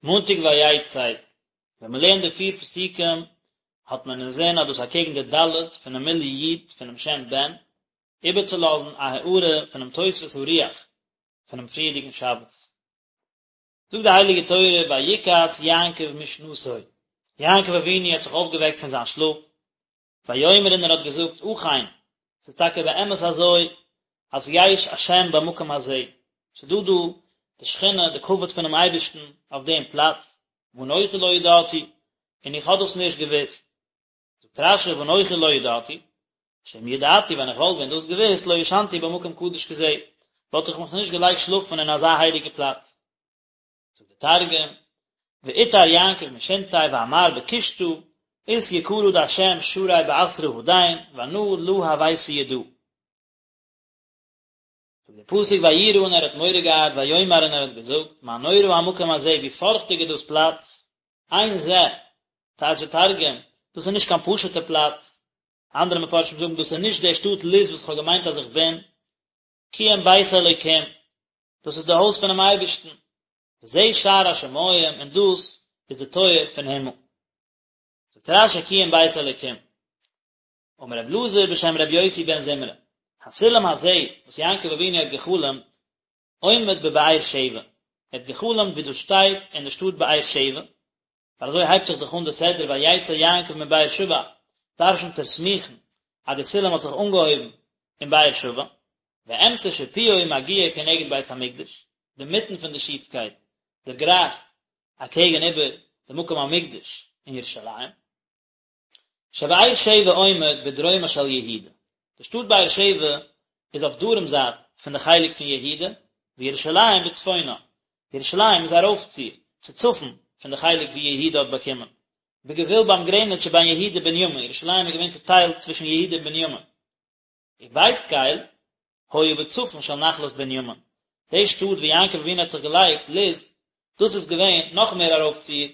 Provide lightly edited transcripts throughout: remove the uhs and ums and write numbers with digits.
מאנטאג ויצא, ווען מען לערנט די פיר פסוקים האט מען אינזין אז דאס אקעגן די ד' פונעם מילוי י' פונעם שם בן, איבערצולאזן א הארה פונעם תוספות הרוח פונעם פריערדיגן שבת. זאגט די הייליגע תורה ויקץ יעקב משנתו, יעקב אבינו האט זיך אויפגעוועקט פון זיין שלאף, ויאמר און ער האט געזאגט אכן, ס'איז טאקע באמת אזוי אז יש השם במקום הזה, ס'איז דא דא די שכינה, די כבוד פונעם אייבערשטן אויף דעם פלאץ, ואנכי לא ידעתי, און איך האב דאס נישט געוואוסט. זאגט רש"י ואנכי לא ידעתי, שאם ידעתי ווען איך וואלט ווען דאס געוואוסט לא ישנתי במקום קדוש כזה, וואלט איך מיך נישט געלייגט שלאפן אין אזא הייליגע פלאץ. זאגט דער תרגום, ואתער יעקב משינתיה ואמר בקושטא אית יקרא דהשם שרי באתרא הדין ואנא לא הויתי ידע. זאגט דער פסוק ויירא און ער האט מורא געהאט ויאמר און ער האט געזאגט מה נורא המקום הזה ווי פארכטיג איז דאס פלאץ, אין זה, טייטש דער תרגום, דאס איז נישט קיין פשוט'ע פלאץ, אנדערע מפרשים זאגן דאס איז נישט די שטאט לוז וואס איך האב געמיינט אז איך בין, כי אם בית אלוקים, דאס איז די הויז פונעם אייבערשטן, וזה שער השמים, און דאס איז די טויער פון הימל. זאגט רש"י כי אם בית אלוקים. אמר רב אלעזר בשם רבי יוסי בן זמרא, הסולם הזה וואס יעקב אבינו האט גע'חלומ'ט, עומד בבאר שבע, ער האט גע'חלומ'ט ווי דאס שטייט אין די שטאט באר שבע, ווייל אזוי הייבט זיך דאך אן די סדרה ויצא יעקב מבאר שבע, דרשנ'ט ער סמוכין אז די סולם האט זיך אנגעהויבן אין באר שבע, ואמצע שיפועו מגיע כנגד בית המקדש, די מיטן פון די שיפקייט דערגרייכט אקעגן איבער די מקום המקדש אין ירושלים. שבאר שבע עומד בדרומה של יהודה, די שטאט באר שבע איז אויף דרום זייט פון די חלק פון יהודה, וירושלים בצפונה, ירושלים איז ארויפציר, צו צפון, פון די חלק ווי יהודה האט באקומען, בגבול ביים גרעניץ שבין יהודה ובנימין, ירושלים איז געווען צוטיילט צווישן יהודה און בנימין. ובית קל היה בצפון של נחלת בנימין, די שטאט ווי יעקב אבינו האט זיך געלייגט, לוז, דאס איז געווען נאך מער ארויפציר,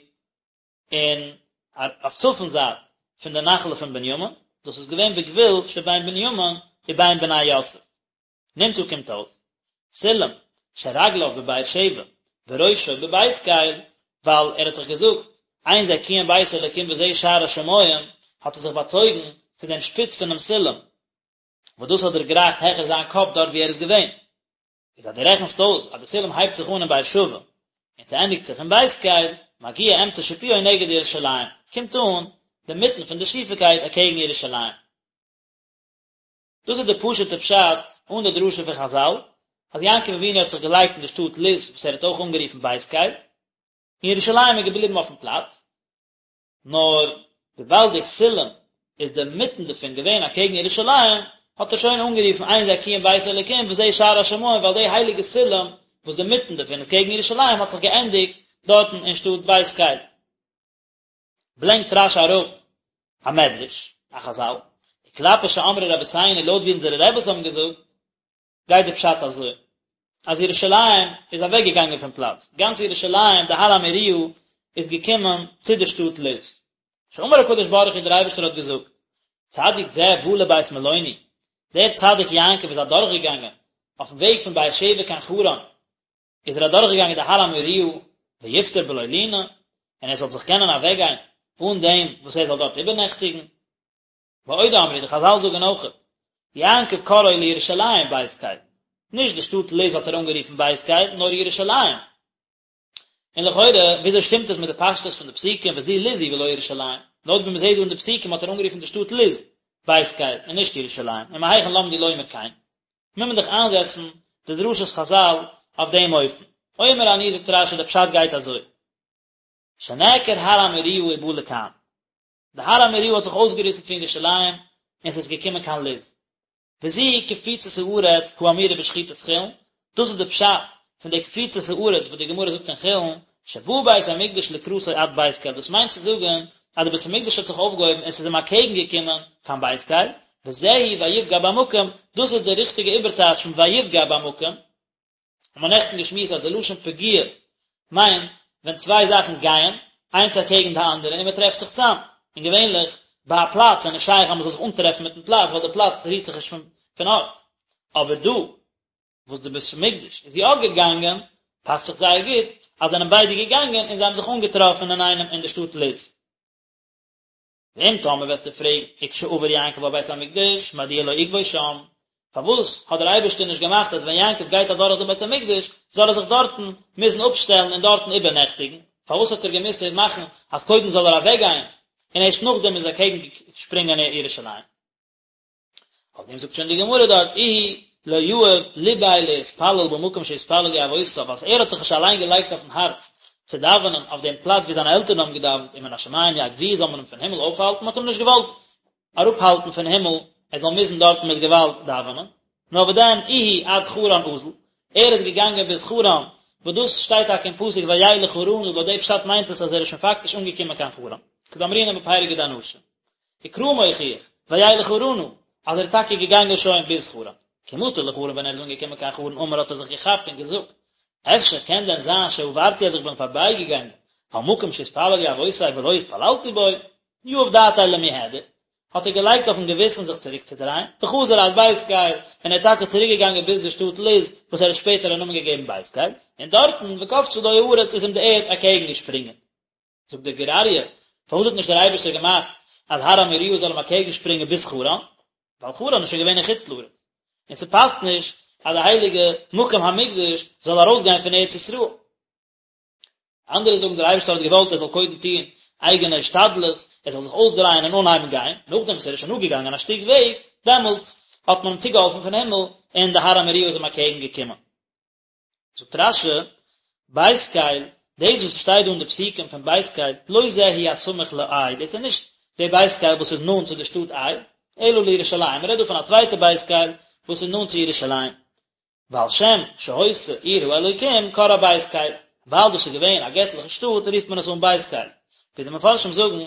און אויף צפון זייט פון די נחלה פון בנימין, דאס איז געווען בגבול שבין בנימין ובין בני יוסף. נמצא קומט אויס, סולם שרגליו בבאר שבע וראשו בבית קל, ווייל ער האט דאך געזאגט, אין זה כי אם בית אלוקים וזה שער השמים, האט ער זיך באצויגן צו דעם שפיץ פונעם סולם, וואס דאס האט דערגרייכט העכער זיין קאפ דארט וואו ער איז געווען. איז אז דו רעכנסט אויס אז די סולם הייבט זיך אן אין באר שבע און ס'ענדיגט זיך אין בית קל, מגיע אמצע שיפועו נגד ירושלים, קומט אן די מיטן פון די שיפיקייט אקעגן ירושלים. דאס איז די פשוט'ע פשט אן די דרשה פון חזל, אז יעקב אבינו האט זיך געלייגט אין די שטאט לוז וואס ער האט אויך אנגערופן בית קל, און ירושלים איז געבליבן אויפן פלאץ, נאר וויבאלד די סולם איז די מיטן דערפון געווען אקעגן ירושלים, האט ער שוין אנגערופן אין זה כי אם בית אלוקים וזה שער השמים ווייל די הייליגע סולם וואס די מיטן דערפון איז קעגן ירושלים האט זיך געענדיגט דארטן אין שטאט בית קל. ברענגט רש"י אראפ א מדרש, א חזל, וכלפי שאמרו רבותינו לויט ווי אונזערע רעבעס האבן געזאגט, גייט די פשט אזוי, אז ירושלים איז אוועק געגאנגען פון פלאץ, גאנץ ירושלים, די הר המוריה, איז געקומען צו די שטאט לוז. שאמר הקדוש ברוך הוא דער אייבערשטער האט געזאגט, צדיק זה בא לבית מלוני, דער צדיק יעקב איז אדורך געגאנגען אויפן וועג פון באר שבע קיין חרן, איז ער אדורך געגאנגען די הר המוריה, ויפטר בלא לינה, און ער זאל זיך קענען אוועק גיין אן דעם וואס ער זאל דארט איבערנעכטיגן. ועוד אמרו, די חזל זאגן אויכעט, יעקב קראו לירושלים בית קל, נישט די שטאט לוז האט ער אנגערופן בית קל, נאר ירושלים. און לכאורה, וויאזוי שטימט עס מיט די פשטות פון די פסוקים וזו לוז היא ולא ירושלים? לויט ווי מ'זעט דא אין די פסוקים האט ער אנגערופן די שטאט לוז בית קל און נישט ירושלים, ומהיכן למדו לומר כן? מוז מען דאך איינזעצן די דרשת חזל אויף דעם אופן. אומר אני זאגט רש"י די פשט גייט אזוי, שנעקר הר המוריה ובא לכאן. די הר המוריה האט זיך אויסגעריסן פון ירושלים און ס'איז געקומען קיין לוז. וזו קפיצת הארץ האמורה בשחיטת חולין, דאס איז די פשט פון די קפיצת הארץ וואס די גמרא זאגט אין חולין, שבא בית המקדש לקראתו עד בית קל, דאס מיינט צו זאגן אז די בית המקדש האט זיך אויפגעהויבן און ס'איז אים אקעגן געקומען קיין בית קל, וזהו ויפגע במקום, דאס איז די ריכטיגע איבערטייטש פון ויפגע במקום. האבן מיר נעכטן געשמועסט אז די לשון פגיעה מיינט ווען צוויי זאכן גייען איינס אקעגן די אנדערע און מען טרעפט זיך צאם, און געווענליך ביי א פלאץ איז נישט שייך אז מען זאל זיך אנטרעפן מיטן פלאץ ווייל די פלאץ רירט זיך נישט פון ארט, אבער דא וואס די בית המקדש איז יא געגאנגען פאסט זיך זייער גוט. אז זענען ביידע געגאנגען און זיי האבן זיך אנגעטראפן אינאיינעם אין די שטאט לוז. ואם טאמער וועסטו פרעגן, וכשעבר יעקב על בית המקדש, מדוע לא עיכבו שם, פארוואס האט דער אייבערשטער נישט געמאכט אז ווען יעקב גייט אדורך דעם בית המקדש, זאל ער זיך דארטן מוזן אפשטעלן און דארטן איבערנעכטיגן, פארוואס האט ער געמוזט מאכן אז קודם זאל ער אוועקגיין און ערשט נאכדעם איז אקעגן שפרינגען ירושלים? אויף דעם זאגט שוין די גמרא דארט, איהו לא יהב ליביה להתפלל במקום שהתפללו אבותיו, אז ער האט זיך נישט אליין געלייגט אויפן הארץ צו דאווענען אויף דעם פלאץ ווי זיינע עלטערן האבן געדאווענט ומן השמים יעכבוהו זאל מען אים פון הימל אויפהאלטן, מען האט אים נישט געוואלט אראפהאלטן פון הימל ער זאל מוזן דארטן מיט געוואלד דאווענען, נאר וואדען איהו עד חרן אזל, ער איז געגאנגען ביז חרן, וואס דאס שטייט טאקע אין פסוק וילך חרנה, לויט די פשט מיינט עס אז ער איז שוין פאקטיש אנגעקומען קיין חרן, כדאמרינן בפרק דאנשים. וקרא מוכיח, וילך חרנה, אז ער איז טאקע געגאנגען שוין ביז חרן. כי מטא לחרן ווען ער איז אנגעקומען קיין חרן אמר האט ער זיך געכאפט און געזאגט, אפשר קען דען זיין שעברתי אז איך בין פארביי געגאנגען על מקום שהתפללו אבותי ולא התפללתי בו, יהב דעתיה למיהדר, האט ער געלייגט אויפן געוויסן זיך צוריק צו דרייען, וחזר עד בית קל, און ער איז טאקע צוריק געגאנגען ביז די שטאט לוז, וואס ער האט שפעטער א נאמען געגעבן בית קל, און דארטן, וקפצה לו הארץ איז אים די ערד אקעגן געשפרינגען. זאגט דער גור אריה, פארוואס האט נישט דער אייבערשטער געמאכט אז הר המוריה זאל אים אקעגן שפרינגען ביז חרן? ווייל חרן איז שוין געווען אין חוץ לארץ, און ס'פאסט נישט אז די הייליגע מקום המקדש זאל ארויסגיין פון ארץ ישראל. אנדערע זאגן דער אייבערשטער האט געוואלט ער זאל קודם טון אייגענע השתדלות, ער זאל זיך אויסדרייען און אנהייבן גיין, נאכדעם וואס ער איז שוין אפגעגאנגען א שטיק וועג, דעמאלטס האט מען אים צוגעהאלפן פון הימל און די הר המוריה איז אים אקעגן געקומען. זאגט רש"י, בית קל, דאס וואס שטייט דא אין די פסוקים פון בית קל, לא זה הוא הסמוך לעי, דאס איז נישט די בית קל וואס איז נאנט צו די שטאט עי, אלא לירושלים, מען רעדט דא פון א צווייטע בית קל וואס איז נאנט צו ירושלים. ועל שם שהיתה עיר האלוקים קראה בית קל, ווייל דאס איז געווען א געטליכע שטאט רופט מען עס אן בית קל, ווי די מפרשים זאגן,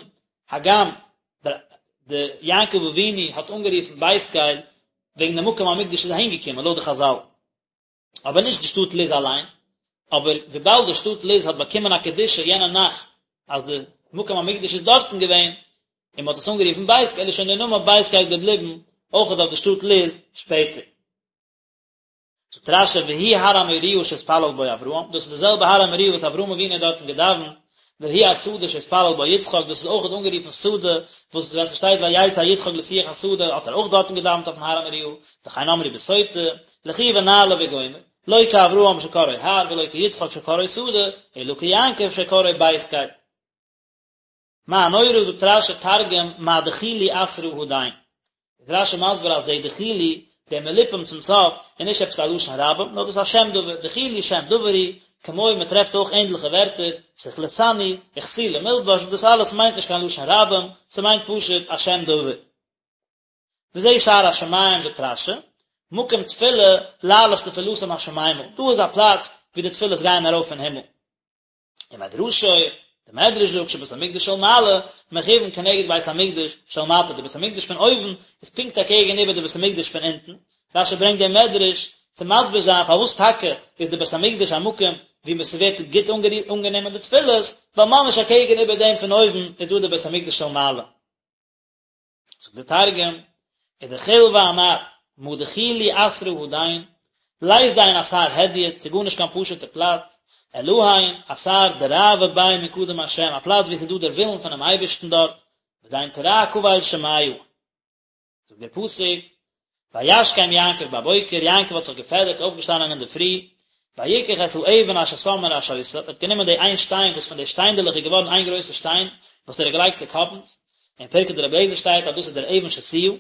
הגם די יעקב אבינו האט אנגערופן בית קל וועגן די מקום המקדש איז אהין געקומען לויט די חז"ל. אבער נישט די שטאט לוז אליין, אבער וויבאלד די שטאט לוז האט באקומען א קדושה יענע נאכט אז די מקום המקדש איז דארטן געווען, און מען האט עס אנגערופן בית קל איז שוין דער נאמען בית קל געבליבן אויכעט אויף די שטאט לוז שפעטער. זאגט רש"י והוא הר המוריה שהתפלל בו אברהם, דאס איז די זעלבע הר המוריה וואס אברהם אבינו האט דארטן געדאווענט, והוא השדה שהתפלל בו יצחק, דאס איז אויכעט אנגערופן שדה, וואס ווען ס'שטייט ויצא יצחק לשוח השדה האט ער אויך דארטן געדאווענט אויפן הר המוריה, וכן אמרו בסוטה, לכו ונעלה וגומר, לא כאברהם שקראו הר ולא כיצחק שקראו שדה, אלא כיעקב שקראו בית קל. מה נורא זאגט רש"י תרגום מה דחילו אתרא הדין. איז רש"י מסביר אז די דחילו, די מלאפום צום סוף, איז נישט עפעס א לשון רבים, נאר דאס איז א שם דבר, דחילו שם דבר הוא, כמו מען טרעפט אויך ענדליכע ווערטער, סכלתני, וכסילי מלבש, דאס אלעס מיינט נישט קיין לשון רבים, ס'מיינט פשוט א שם דבר. וזה שער השמים זאגט רש"י, מקום תפילה להעלות תפילתם השמימה, דא איז א פלאץ ווי די תפילות גייען ארויף אין הימל. ומדרשו, די מדרש זאגט שבית המקדש של מעלה מכוון כנגד בית המקדש של מטה, די בית המקדש פון אויבן איז פונקט אקעגן איבער די בית המקדש פון אונטן, רש"י ברענגט דעם מדרש צו מסביר זיין פארוואס טאקע איז די בית המקדש א מקום וואו ס'ווערט גוט אנגענומען די תפילות, ווייל ממש אקעגן איבער דעם פון אויבן איז דא די בית המקדש של מעלה. זאגט דער תרגום, ודחיל ואמר, מה דחילו אתרא הדין, לית דין אתר הדיוט, ס'איז גארנישט קיין פשוט'ע פלאץ, אלהין אתר דרעוא ביה מקדם השם, א פלאץ וואו ס'איז דא דער ווילן פונעם אייבערשטן דארט, ודין תרע קבל שמיא. זאגט דער פסוק, וישכם יעקב בבוקר, יעקב האט זיך געפעדערט, אויפגעשטאנען אינדערפרי, ויקח את האבן אשר שם מראשותיו, ער האט גענומען די איין שטיין וואס פון די שטיינדעלעך איז געווארן איין גרויסע שטיין, וואס ער האט געלייגט צוקאפנס, אין פרקי דרבי אליעזר שטייט אז דאס איז דער אבן שתיה,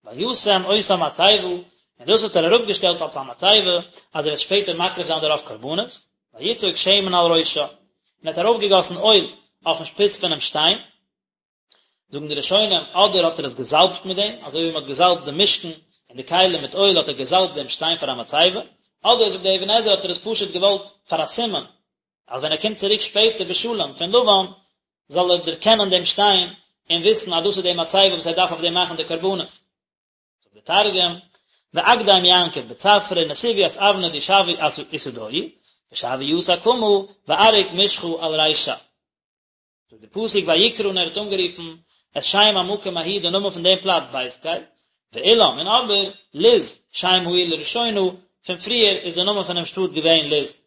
וישם אותה מצבה, און דאס האט ער אראפגעשטעלט אלס א מצבה, אז ער וועט שפעטער מקריב זיין דערויף קרבנות, ויצוק שמן על ראשה, און ער האט ארויפגעגאסן אויל אויפן שפיץ פונעם שטיין, זאגן די ראשונים, אדער האט ער עס געזאלבט מיט דעם, אזוי ווי מען האט געזאלבט די משכן און די כלים מיט אויל האט ער געזאלבט דעם שטיין פאר א מצבה, אדער זאגט דער אבן עזרא האט ער עס פשוט געוואלט פאר א סימן, אז ווען ער קומט צוריק שפעטער בשלום פון לבן, זאל ער דערקענען דעם שטיין און וויסן אז דאס איז די מצבה וואס ער דארף אויף דעם מאכן די קרבנות. זאגט דער תרגום, ואקדים יעקב בצפרא נסיב ית אבנא די שויא עתדוהי, ושויא יתא קמא ואריק משחא על רישה. זאגט דער פסוק ויקרא און ער האט אנגערופן את שם המקום ההוא די נאמען פון דעם פלאץ בית קל, ואולם און אבער לוז שם העיר לראשונה, פון פריער איז דער נאמען פון דעם שטאט געווען לוז.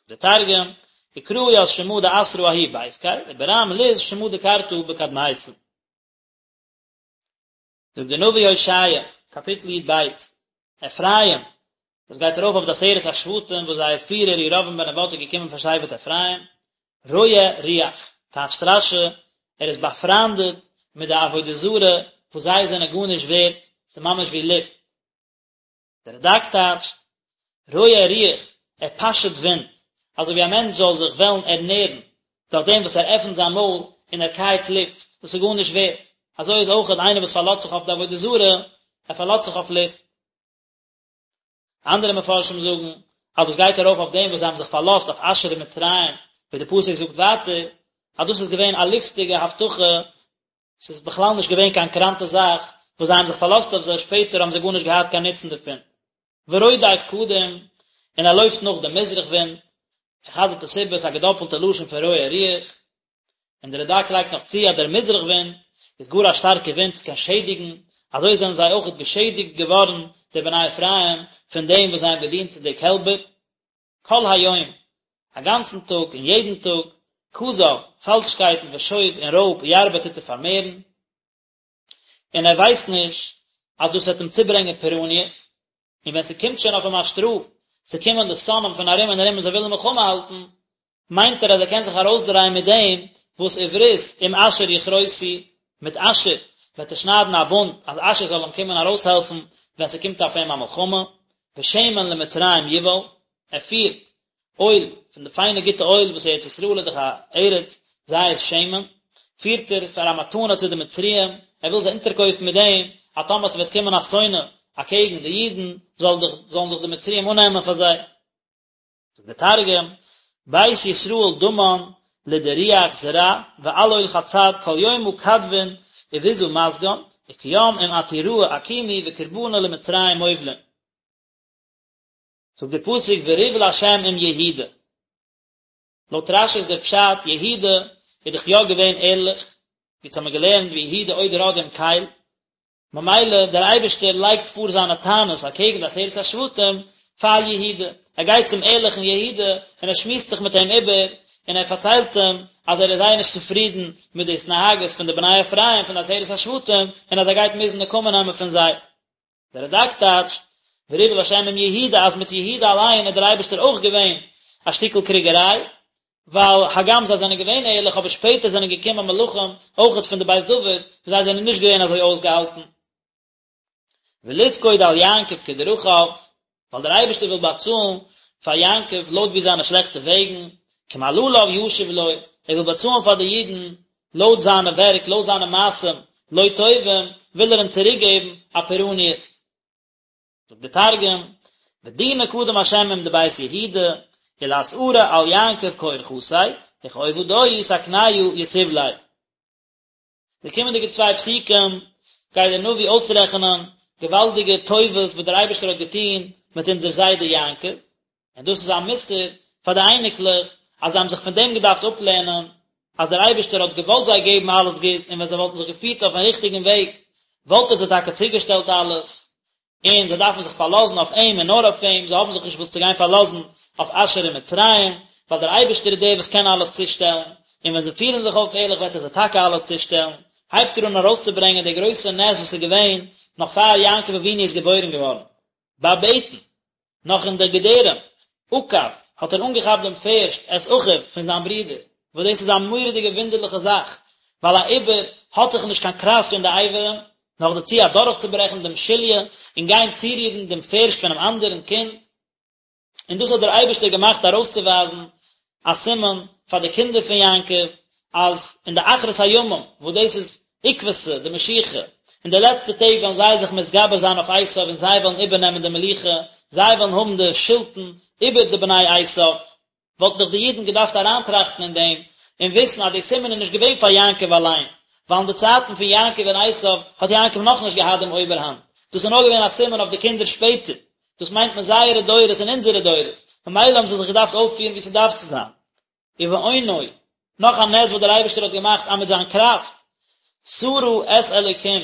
זאגט דער תרגום. וקרא ית שמא דאתרא ההוא בית קל, וברם לוז שמא דקרתא בקדמיתא. זאגט דער נביא הושע, קאפיטל י"ב, אפרים, דאס גייט ארויף אויף די עשרת השבטים וואס זייער פירער ירבעם בן נבט איז געקומען פון שבט אפרים, רועה רוח, טייטשט רש"י, ער איז באפריינדעט מיט די עבודה זרה וואס זיי זענען גארנישט ווערט, ס'איז ממש ווי לופט. דער רד"ק טייטשט, רועה רוח, ער פאשעט ווינט, אזוי ווי א מענטש זאל זיך וועלן ערנערן דורך דעם וואס ער עפנט זיין מויל און ער קייעט לופט, דאס איז גארנישט ווערט, אזוי איז אויכעט איינער וואס פארלאזט זיך אויף די עבודה זרה, ער פארלאזט זיך אויף לופט. אנדערע מפרשים זאגן אז דאס גייט ארויף אויף דעם וואס זיי האבן זיך פארלאזט אויף אשור און מצרים, ווי דער פסוק זאגט ווייטער אז דאס איז געווען א לופטיגע הבטחה, ס'איז בכלל נישט געווען קיין קראנטע זאך וואס זיי האבן זיך פארלאזט אויף זיי, שפעטער האבן זיי גארנישט געהאט קיין נוצן דערפון. ורודף קדים, און ער לויפט נאך דעם מזרח ווינט, ער חזר'ט עס איבער, ס'איז א געדאפלטע לשון פון רועה רוח, און דער רד"ק לייגט נאך צו אז דער מזרח ווינט איז גאר א שטארקע ווינט, ס'קען שעדיגן, אזוי זענען זיי אויכעט געשעדיגט געווארן די בני אפרים פון דעם וואס זיי האבן געדינט צו די קעלבער. כל היום, א גאנצן טאג און יעדן טאג, כזב, פאלשקייטן ושוד און רויב ירבה טוט ער פארמערן, און ער ווייסט נישט אז דאס וועט אים צוברענגען פורעניות, און ווען ס'קומט שוין אויף אים א שטראף, ס'קומען די שונאים פון ארום און ארום און זיי ווילן מלחמה האלטן, מיינט ער אז ער קען זיך ארויסדרייען מיט דעם וואס וברית עם אשור יכרותו, מיט אשור וועט ער שניידן א בונד אז אשור זאל אים קומען ארויסהעלפן ווען ס'קומט אויף אים א מלחמה, ושמן למצרים יובל, ער פירט אויל, פון די פיינע גוטע אויל וואס ארץ ישראל איז דאך א ארץ זית שמן, פירט ער פאר א מתנה צו די מצריים, ער וויל זיי אונטערקויפן מיט דעם, אז טאמער ס'וועט קומען א שונא אקעגן די אידן, זאל זיך, זאלן זיך די מצריים אננעמען פאר זיי. זאגט דער תרגום, בית ישראל דמן לדרוח זרע ועלול חצד כל יומא כדבין וביזא מסגן, וכים עם עתוראי אקימו וקרבנא למצרים מובלין. זאגט דער פסוק וריב לה' עם יהודה. לויט רש"י איז דער פשט, יהודה איז דאך יא געווען ערליך, ווי אונז האמיר געלערנט ויהודה עוד רד עם קל, ממילא דער אייבערשטער לייגט פאר זיינע טענות אקעגן די עשרת השבטים פאר יהודה, ער גייט צום ערליכן יהודה און ער שמועסט זיך מיט אים איבער, און ער פארציילט אים אז ער איז זייער נישט צופרידן מיט די התנהגות פון די בני אפרים פון די עשרת השבטים, און אז ער גייט מוזן נקמה נעמען פון זיי. דער רד"ק טייטשט, וריב לה' עם יהודה אז מיט יהודה אליין איז דער אייבערשטער אויך געווען א שטיקל קריגעריי, ווייל הגם זיי זענען געווען ערליך אבער שפעטער זענען געקומען מלכים אויכעט פון די בית דוד וואס זיי זענען נישט געווען אזוי אויסגעהאלטן. ולפקוד על יעקב כדרכיו, ווייל דער אייבערשטער וויל באצאלן פאר יעקב לויט ווי זיינע שלעכטע וועגן, כמעלליו ישיב לו, ער וויל באצאלן פאר די אידן לויט זיינע ווערק, לויט זיינע מעשים לא טובים, וויל ער אים צוריק געבן א פורעניות. זאגט דער תרגום, ודינא קדם השם עם דבית יהודה, ולאתערא על יעקב כאורחתיה, וכעובדוי תקניא יתיב ליה. די קומענדיגע צוויי פסוקים גייט דער נביא אויסרעכענען געוואלדיגע טובות וואס דער אייבערשטער האט געטון מיט אונזער זיידע יעקב, און דאס איז א מוסר פאר די אייניקלעך אז זיי האבן זיך פון דעם געדארפט אפלערנען אז דער אייבערשטער האט געוואלט זיי געבן אלעס גוטס און ווען זיי וואלטן זיך געפירט אויפן ריכטיגן וועג וואלט ער זיי טאקע צוגעשטעלט אלעס, און זיי דארפן זיך פארלאזן אויף אים און נאר אויף אים, זיי האבן זיך נישט וואס צו גיין פארלאזן אויף אשור און מצרים, ווייל דער אייבערשטער איז דער וואס קען אלעס צושטעלן, און ווען זיי פירן זיך אויף ערליך וועט ער זיי טאקע אלעס צושטעלן, הייבט ער אן ארויסצוברענגען די גרויסע נס וואס איז געווען נאך פאר יעקב אבינו איז געבוירן געווארן. בבטן, נאך אין די געדערים, עקב, האט ער אנגעכאפט דעם פערשט את אחיו פון זיין ברודער, וואס דאס איז א מורא'דיגע וואונדערליכע זאך, ווייל א עובר האט דאך נישט קיין קראפט אין די אברים, נאכדערצו אדורכצוברעכן דעם שליה און גיין צורירן דעם פערשט פונעם אנדערן קינד, און דאס האט דער אייבערשטער געמאכט ארויסצואווייזן א סימן פאר די קינדער פון יעקב, אז אין די אחרית הימים, וואס דאס איז עקבתא דמשיחא, אין די לעצטע טעג וועלן זיי זיך מתגבר זיין אויף עשיו און זיי וועלן איבערנעמען די מלוכה, זיי וועלן האבן די שלטון איבער די בני עשיו. וואלטן דאך די אידן געדארפט אריינטראכטן אין דעם און וויסן אז די סימן איז נישט געווען פאר יעקב אליין, ווייל אין די צייטן פון יעקב און עשיו האט יעקב נאכנישט געהאט דעם אויבערהאנט, דאס איז נאר געווען א סימן אויף די קינדער שפעטער, דאס מיינט מען זייערע דורות און אונזערע דורות, ממילא האבן זיי זיך געדארפט אויפפירן ווי ס'דארף צו זיין. ובאונו, נאך א נס וואס דער אייבערשטער האט געמאכט אז מיט זיין קראפט, שרה את אלוקים,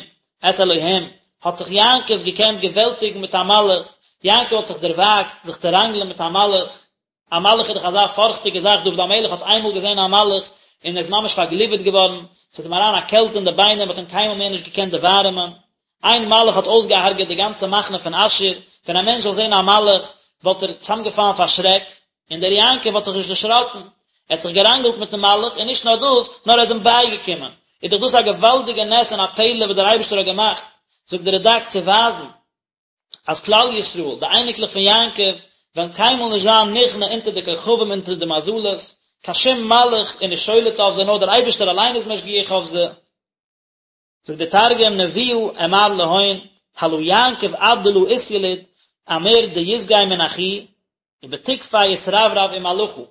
את אלוהים, האט זיך יעקב געקענט געוועלטיגן מיט א מלאך, יעקב האט זיך דערוואגט זיך צו ראנגלען מיט א מלאך. א מלאך איז דאך אזא פארכטיגע זאך, דוד המלך האט איינמאל געזען א מלאך און ער איז ממש פארגליווערט געווארן, ס'איז אים אריין א קעלט אין די ביינער, מ'האט אים קיינמאל מער נישט געקענט דערווארעמען. איין מלאך האט אויסגעהארגעט די גאנצע מחנה פון אשור, ווען א מענטש זאל זען א מלאך וואלט ער צוזאמגעפאלן פאר שרעק, און דער יעקב האט זיך נישט דערשראקן, ער האט זיך געראנגלט מיטן מלאך, און נישט נאר דאס, נאר ער איז אים בייגעקומען. איז דאך דאס א געוואלדיגע נס און א פלא וואס דער אייבערשטער האט געמאכט, זאגט דער רד"ק, צו ווייזן אז כלל ישראל, די אייניקלעך פון יעקב, וועלן קיינמאל נישט זיין נכנע אונטער די כוכבים אונטער די מזלות, קיין שום מלאך איז נישט שולט אויף זיי, נאר דער אייבערשטער אליין איז משגיח אויף זיי. זאגט דער תרגום נבואה אמר להון הלא יעקב עד דלא אתיליד אמיר דיסגי מן אחוהי ובתוקפיה אתרברב עם מלאכא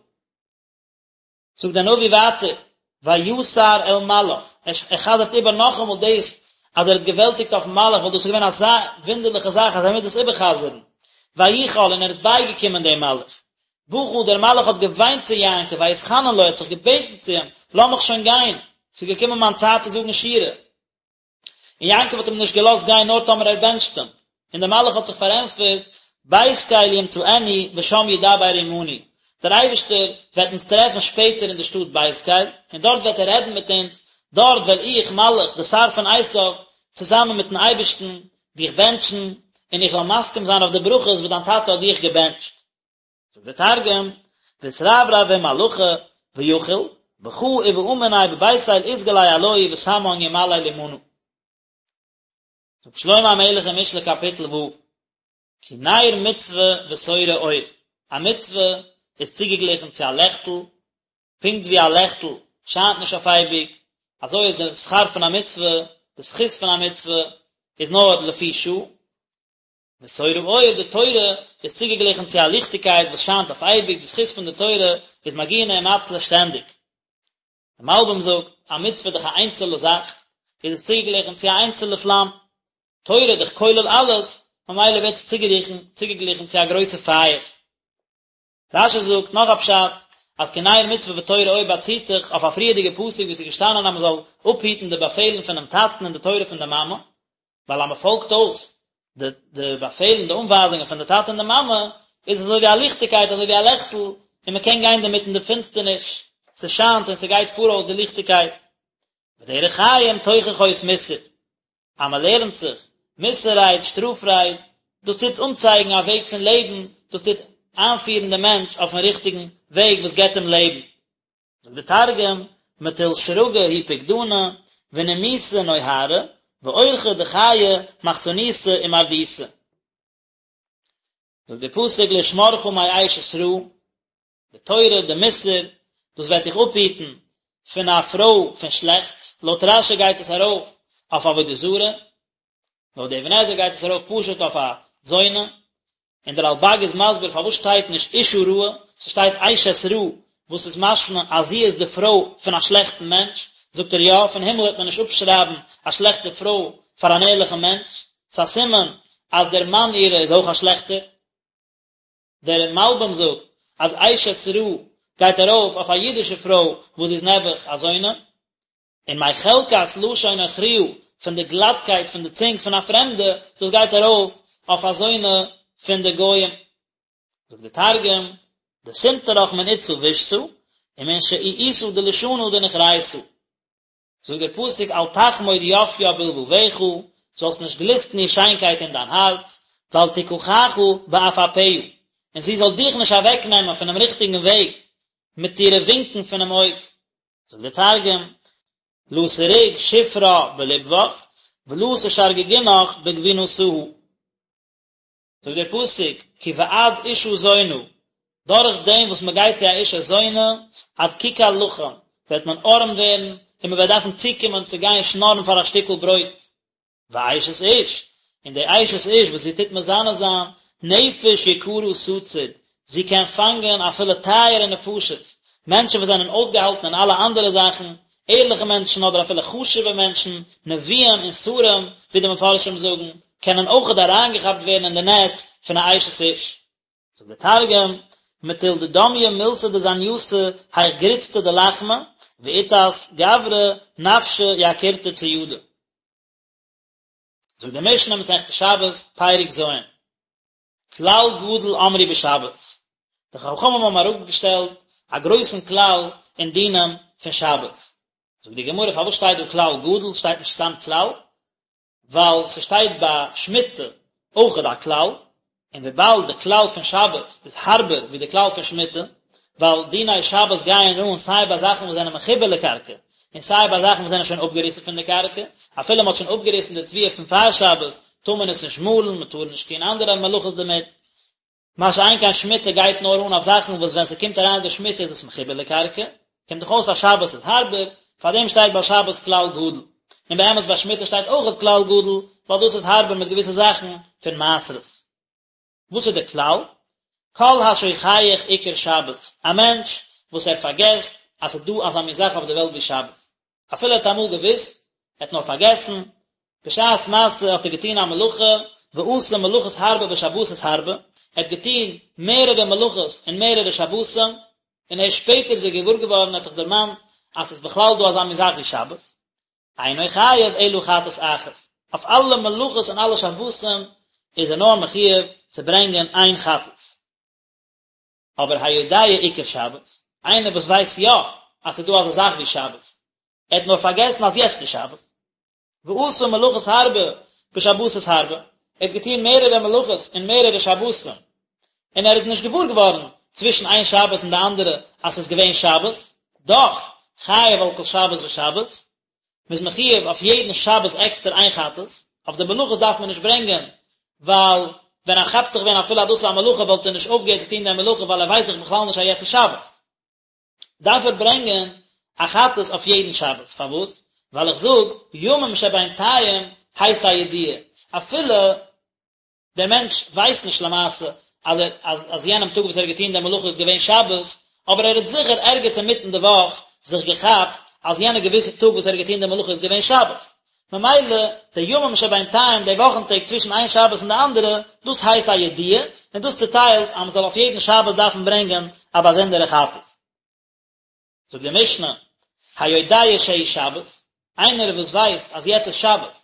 זאגט דער נביא ווייטער ויתר אל מלאך ער חזר'ט איבער נאכאמאל דאס אז ער האט געוועלטיגט אויפן מלאך ווייל דאס איז געווען אזא וואונדערליכע זאך אז ער מוז עס איבערחזר'ן ויכל און ער איז בייגעקומען דעם מלאך בכה דער מלאך האט געוויינט צו יעקב, ויתחנן לו, ער האט זיך געבעטן צו אים, לאז מיך שוין גיין, ס'איז געקומען מיין צייט צו זאגן שירה. און יעקב האט אים נישט געלאזט גיין נאר טאמער ער בענטשט אים. און דער מלאך האט זיך פארענטפערט, בית קל ימצאנו ושם ידבר עמנו, דער אייבערשטער וועט אונז טרעפן שפעטער אין די שטאט בית קל, און דארט וועט ער רעדן מיט אונז, דארט וועל איך, מלאך, דער שר פון עשיו, צוזאמען מיטן אייבערשטן, דיך בענטשן, און איך וועל מסכים זיין אויף די ברכות וואס דיין טאטע האט דיך געבענטשט. זאגט דער תרגום, ואתרברב עם מלאכא ויכיל, בכא ובעא מניה בבית אל אתגלי עלוהי ותמן ימלל עמנא. זאגט שלמה המלך אין משלי קאפיטל ו', כי נר מצוה ותורה אור, א מצוה איז צוגעגליכן צו א לעכטל, פונקט ווי א לעכטל שיינט נישט אויף אייביג, אזוי איז די שכר פון א מצוה, די זכות פון א מצוה איז נאר לפי שעה, ותורה אור, די תורה איז צוגעגליכן צו א ליכטיגקייט וואס שיינט אויף אייביג, די זכות פון די תורה איז מגינא ומצלא שטענדיג. דער מלבי"ם זאגט, א מצוה איז דאך א איינצעלע זאך, איז עס צוגעגליכן צו א איינצעלע פלאם. תורה איז דאך כולל אלעס, ממילא ווערט עס צוגעגליכן צו א גרויסע פייער. רש"י זאגט נאך א פשט, אז כי נר מצוה ותורה אור באציט זיך אויף א פריערדיגע פסוק וואו עס איז געשטאנען אז מען זאל אפהיטן די באפעלן פונעם טאטן און די תורה פון די מאמע, ווייל אז מען פאלגט אויס די די באפעלן די אנווייזונגען פון די טאטע און די מאמע, איז עס אזוי ווי א ליכטיגקייט אזוי ווי א לעכטל, און מען קען גיין דערמיט אין די פינסטערניש, ס'שיינט און ס'גייט פאראויס די ליכטיגקייט. ודרך חיים תוכחות מוסר, אז מען לערנט זיך מוסר רייד, שטראף רייד, דאס טוט אנצייגן א וועג פון לעבן, דאס טוט איינפירן דעם מענטש אויפן ריכטיגן וועג וואס געבט אים לעבן. זאגט דער תרגום, מטול שרגא הוא פקדנא, ונימוסא נהרא, ואורחא דחיי מחסניתא ומרדותא. זאגט דער פסוק לשמרך מאשת רעה, די תורה, די מוסר, דאס וועט דיך אפהיטן פון א פרוי פון שלעכטס, לויט רש"י גייט עס ארויף אויף עבודה זרה, לויט די אבן עזרא גייט עס ארויף פשוט אויף א זונה, און דער רלב"ג איז מסביר פארוואס שטייט נישט אשה רעה, ס'שטייט אשת רע, וואס איז משמע אז זי איז די פרוי פון א שלעכטן מענטש, זאגט ער יא, פון הימל וועט מען נישט אפשרייבן א שלעכטע פרוי פאר אן ערליכן מענטש, ס'איז א סימן אז דער מאן אירע איז אויך א שלעכטער. דער מלבי"ם זאגט אז אשת רע גייט ארויף אויף א אידישע פרוי וואס זי איז נעבעך א זונה, און מחלקת לשון נכריה פון די גלאטקייט פון די צונג פון א פרעמדע, דאס גייט ארויף אויף א זונה פון די גויים. זאגט דער תרגום, דסנטרך מן אתתא בישתא, ומן שעיעותא דלישנא דנוכריתא. זאגט דער פסוק אל תחמוד יפיה בלבבך, זאלסט נישט גליסטן איר שיינקייט אין דיין הארץ, ואל תקחך בעפעפיה, און זי זאל דיך נישט אוועקנעמען פונעם ריכטיגן וועג מיט אירע ווינקען פונעם אויג. זאגט דער תרגום, לא סריג שופרה בלבבך, ולא תשרגגינך בגבינתהא. זאגט דער פסוק, כי בעד אשה זונה, דורך דעם וואס מען גייט צו א אשה זונה, עד ככר לחם, וועט מען ארעם ווערן, און מען וועט דארפן צוקומען צו גיין שנארן פאר א שטיקל ברויט. ואשת איש, און די אשת איש וואס זי טוט מזנה זיין, נפש יקרה תצוד, זי קען פאנגען אפילו טייערע נפשות, מענטשן וואס זענען אויסגעהאלטן אין אלע אנדערע זאכן, ערליכע מענטשן אדער אפילו חשוב'ע מענטשן, נביאים און שרים, ווי די מפרשים זאגן, קענען אויכעט אריינגעכאפט ווערן אין די נעץ פון א אשת איש. זאגט דער תרגום, מטול דדמיא מילתא דזניותא היך גריצתא דלחמא, ואיתת גברא נפשא יקירתא צידא. זאגט די משנה מסכת שבת, פרק ז', כלל גדול אמרו בשבת. די חכמים האבן אראפגעשטעלט א גרויסן כלל אין דינים פון שבת. זאגט די גמרא פארוואס שטייט דא כלל גדול, שטייט נישט סתם כלל? ווייל ס'שטייט ביי שמיטה אויכעט א כלל, און וויבאלד די כלל פון שבת איז הארבער ווי די כלל פון שמיטה, ווייל דיני שבת גייען אן סיי ביי זאכן וואס זענען מחובר לקרקע, און סיי ביי זאכן וואס זענען שוין אפגעריסן פון די קרקע, אפילו מ'האט שוין אפגעריסן די תבואה פון פאר שבת, טאר מען עס נישט מאלן, מ'טאר נישט טון אנדערע מלאכות דערמיט, מה שאין כן שמיטה גייט נאר אן אויף זאכן וואס ווען ס'קומט אריין די שמיטה איז עס מחובר לקרקע, קומט דאך אויס אז שבת איז הארבער, פארדעם שטייט ביי שבת כלל גדול, און באמת ביי שמיטה שטייט אויכעט כלל גדול, ווייל דאס איז הארבער מיט געוויסע זאכן פון מעשרות. וואס איז די כלל? כל השוכח עיקר שבת, א מענטש וואס ער פארגעסט אז ס'איז דא אזא מין זאך אויף די וועלט ווי שבת, אפילו ער האט אמאל געוואוסט, ער האט נאר פארגעסן, בשעת מעשה האט ער געטון א מלאכה, ועשה מלאכות הרבה בשבתות הרבה, ער האט געטון מערערע מלאכות אין מערערע שבתים, און ערשט שפעטער איז ער געוואר געווארן, ער האט זיך דערמאנט אז ס'איז בכלל דא אזא מין זאך ווי שבת, אינו חייב אלא חטאת אחת, אויף אלע מלאכות און אלע שבתים איז ער נאר מחויב צו ברענגען איין חטאת. אבער היודע עיקר שבת, איינער וואס ווייסט יא אז ס'איז דא אזא זאך ווי שבת, ער האט נאר פארגעסן אז יעצט איז שבת, ועשה מלאכות הרבה בשבתות הרבה, ער האט געטון מערערע מלאכות אין מערערע שבתים, און ער איז נישט געוואר געווארן צווישן איין שבת און די אנדערע אז ס'איז געווען שבת, דאך, חייב על כל שבת ושבת, מ'איז מחויב אויף יעדן שבת עקסטער איין חטאת, אויף די מלאכות דארף מען נישט ברענגען, ווייל ווען ער כאפט זיך ווען אפילו אז דאס איז א מלאכה וואלט ער נישט אויפגעהערט צו טון די מלאכה ווייל ער ווייסט דאך בכלל נישט אז יעצט איז שבת. דארף ער ברענגען א חטאת אויף יעדן שבת, פארוואס? ווייל איך זאג, ימים שבינתיים הייסט א ידיעה, אפילו דער מענטש ווייסט נישט למעשה אז ער אז אז יענעם טאג וואס ער האט געטון די מלאכה איז געווען שבת, אבער ער האט זיכער ערגעץ אינמיטן די וואך זיך געכאפט אז יענע געוויסע טאג וואס ער האט געטון די מלאכה איז געווען שבת. ממילא די ימים שבינתיים, די וואכן טעג צווישן איין שבת און די אנדערע, דאס הייסט א ידיעה, און דאס צוטיילט אז מען זאל אויף יעדן שבת דארפן ברענגען א באזונדערע חטאת. זאגט די משנה, היודע שהוא שבת, איינער וואס ווייסט אז יעצט איז שבת,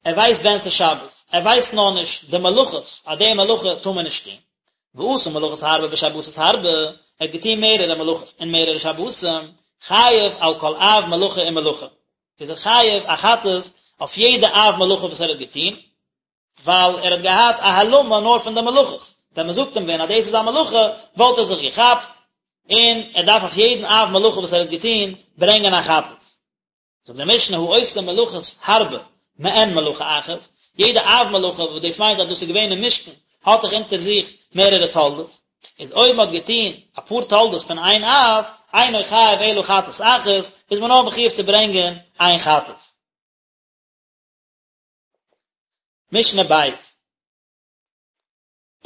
ער ווייסט ווען ס'איז שבת, ער ווייסט נאר נישט די מלאכות, אז די מלאכה טאר מען נישט טון. ועשה מלאכות הרבה בשבתות הרבה, ער האט געטון מערערע מלאכות אין מערערע שבתים, חייב על כל אב מלאכה ומלאכה, איז ער חייב א חטאת אויף יעדע אב מלאכה וואס ער האט געטון, ווייל ער האט געהאט א העלמה נאר פון די מלאכות, ווען מען זאגט אים ווען אז דאס איז א מלאכה, וואלט ער זיך געכאפט, און ער דארף אויף יעדן אב מלאכה וואס ער האט געטון ברענגען א חטאת. זאגט די משנה העושה מלאכות הרבה מעין מלאכה אחת, יעדע אב מלאכה וואס דאס מיינט אז דאס איז געווען אין משכן האט דאך אונטער זיך מערערע תולדות, איז אויב מען האט געטון אפאר תולדות פון איין אב, אינו חייב אלא חטאת אחת, איז מען נאר מחויב צו ברענגען איין חטאת. משנה בית.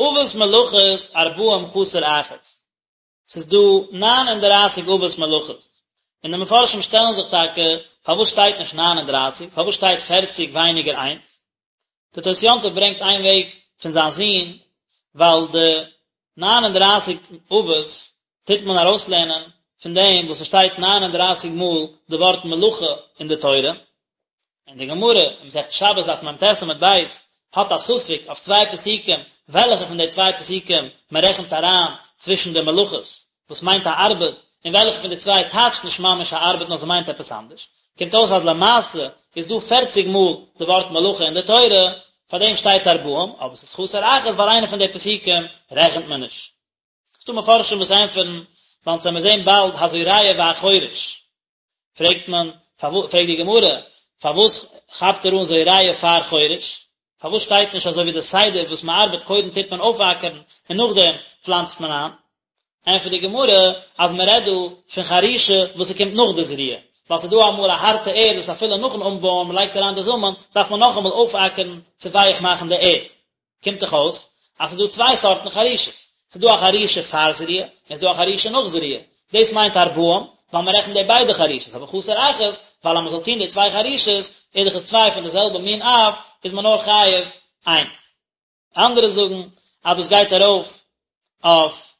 אבות מלאכות ארבעים חסר אחת. ס'איז דא 39 אבות מלאכות, און די מפרשים שטעלן זיך טאקע פארוואס שטייט נישט 39, פארוואס שטייט פערציג ווייניגער איינס? די תוס' יום טוב ברענגט איין וועג פון זיין זון, ווייל די 39 אבות טוט מען ארויסלערנען פון דעם וואס ס'שטייט 39 מאל די ווארט מלאכה אין די תורה, און די גמרא אין מסכת שבת דף מ"ט עמוד ב' האט א ספק אויף צוויי פסוקים וועלכע פון די צוויי פסוקים מען רעכנט אריין צווישן די מלאכות וואס מיינט א ארבעט און וועלכע פון די צוויי טייטשט נישט ממש א ארבעט נאר ס'מיינט עפעס אנדערש, קומט אויס אז למעשה איז דא פערציג מאל די ווארט מלאכה אין די תורה, פאר דעם שטייט ארבעים, אבער ס'איז חסר אחת ווייל איינע פון די פסוקים רעכנט מען נישט. ס'דא מפרשים וואס ענטפערן, ווייל אונז וועמיר זען באלד הזורע והחורש. פרעגט מען, פרעגט די גמרא, פארוואס כאפט ער אן זורע פאר חורש? פארוואס שטייט נישט אזוי ווי די סדר וואס מען ארבעט קודם טוט מען אויפאקערן און נאכדעם פלאנצט מען איין? ענטפערט די גמרא אז מען רעדט דא פון חרישה וואס ס'קומט נאך די זריעה, ווייל ס'איז דא אמאל א הארטע ערד וואס אפילו נאכן אנבויען מען לייגט אריין די זאמען דארף מען נאכאמאל אויפאקערן צו ווייך מאכן די ערד. קומט דאך אויס אז ס'איז דא צוויי סארטן חרישות, ס'איז דא א חרישה פאר זריעה, און ס'איז דא א חרישה נאך זריעה, דאס מיינט ארבעים, ווייל מען רעכנט די ביידע חרישות, אבער חסר אחת, ווייל אז מען זאל טון די צוויי חרישות, איז דאך עס צוויי פון די זעלבע מין אב, איז מען נאר חייב איינס. אנדערע זאגן אז דאס גייט ארויף אויף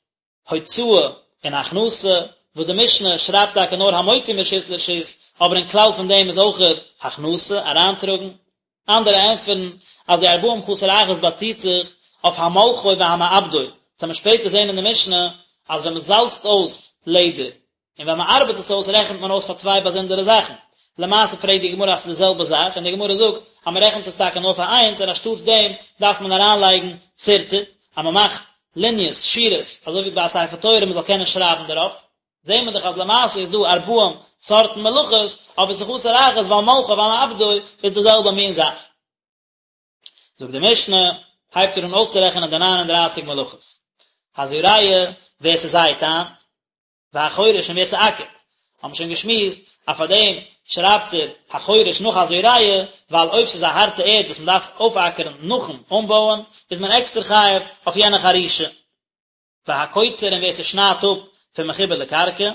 הוצאה און הכנסה, וואס די משנה שרייבט טאקע נאר המוציא מרשות לרשות, אבער אין כלל פון דעם איז אויכעט הכנסה, אריינטראגן. אנדערע ענטפערן אז די ארבעים חסר אחת באציט זיך אויף המולחו והמעבדו, וועט מען שפעטער זען אין די משנה אז ווען מען זאלצט אויס לעדער און ווען מען ארבעט עס אויס רעכנט מען אויס פאר צוויי באזונדערע זאכן. למעשה פרעגט די גמרא אז ס'איז די זעלבע זאך און די גמרא זאגט אז מען רעכנט עס טאקע נאר פאר איינס און אנשטאטס דעם דארף מען אריינלייגן שרטוט אז מען מאכט ליניעס, שורות, אזוי ווי ביי א ספר תורה מען זאל קענען שרייבן דערויף. זעהן מיר דאך אז למעשה איז דא ארבעים סארטן מלאכות, אבער ס'איז חסר אחת ווייל מולחו והמעבדו איז די זעלבע מין זאך. זאגט די משנה, הייבט ער אן אויסצורעכענען די ניין און דרייסיג מלאכות. הזורע, ווער ס'זייט איין, והחורש און ווער ס'אקערט. האבן מיר שוין געשמועסט אז פאר דעם שרייבט ער החורש נאך הזורע, ווייל אויב ס'איז א הארטע ערד וואס מ'דארף אויפאקערן נאכן אנבויען, איז מען עקסטער חייב אויף יענע חרישה. והקוצר און ווער ס'שניידט אפ פון מחובר לקרקע,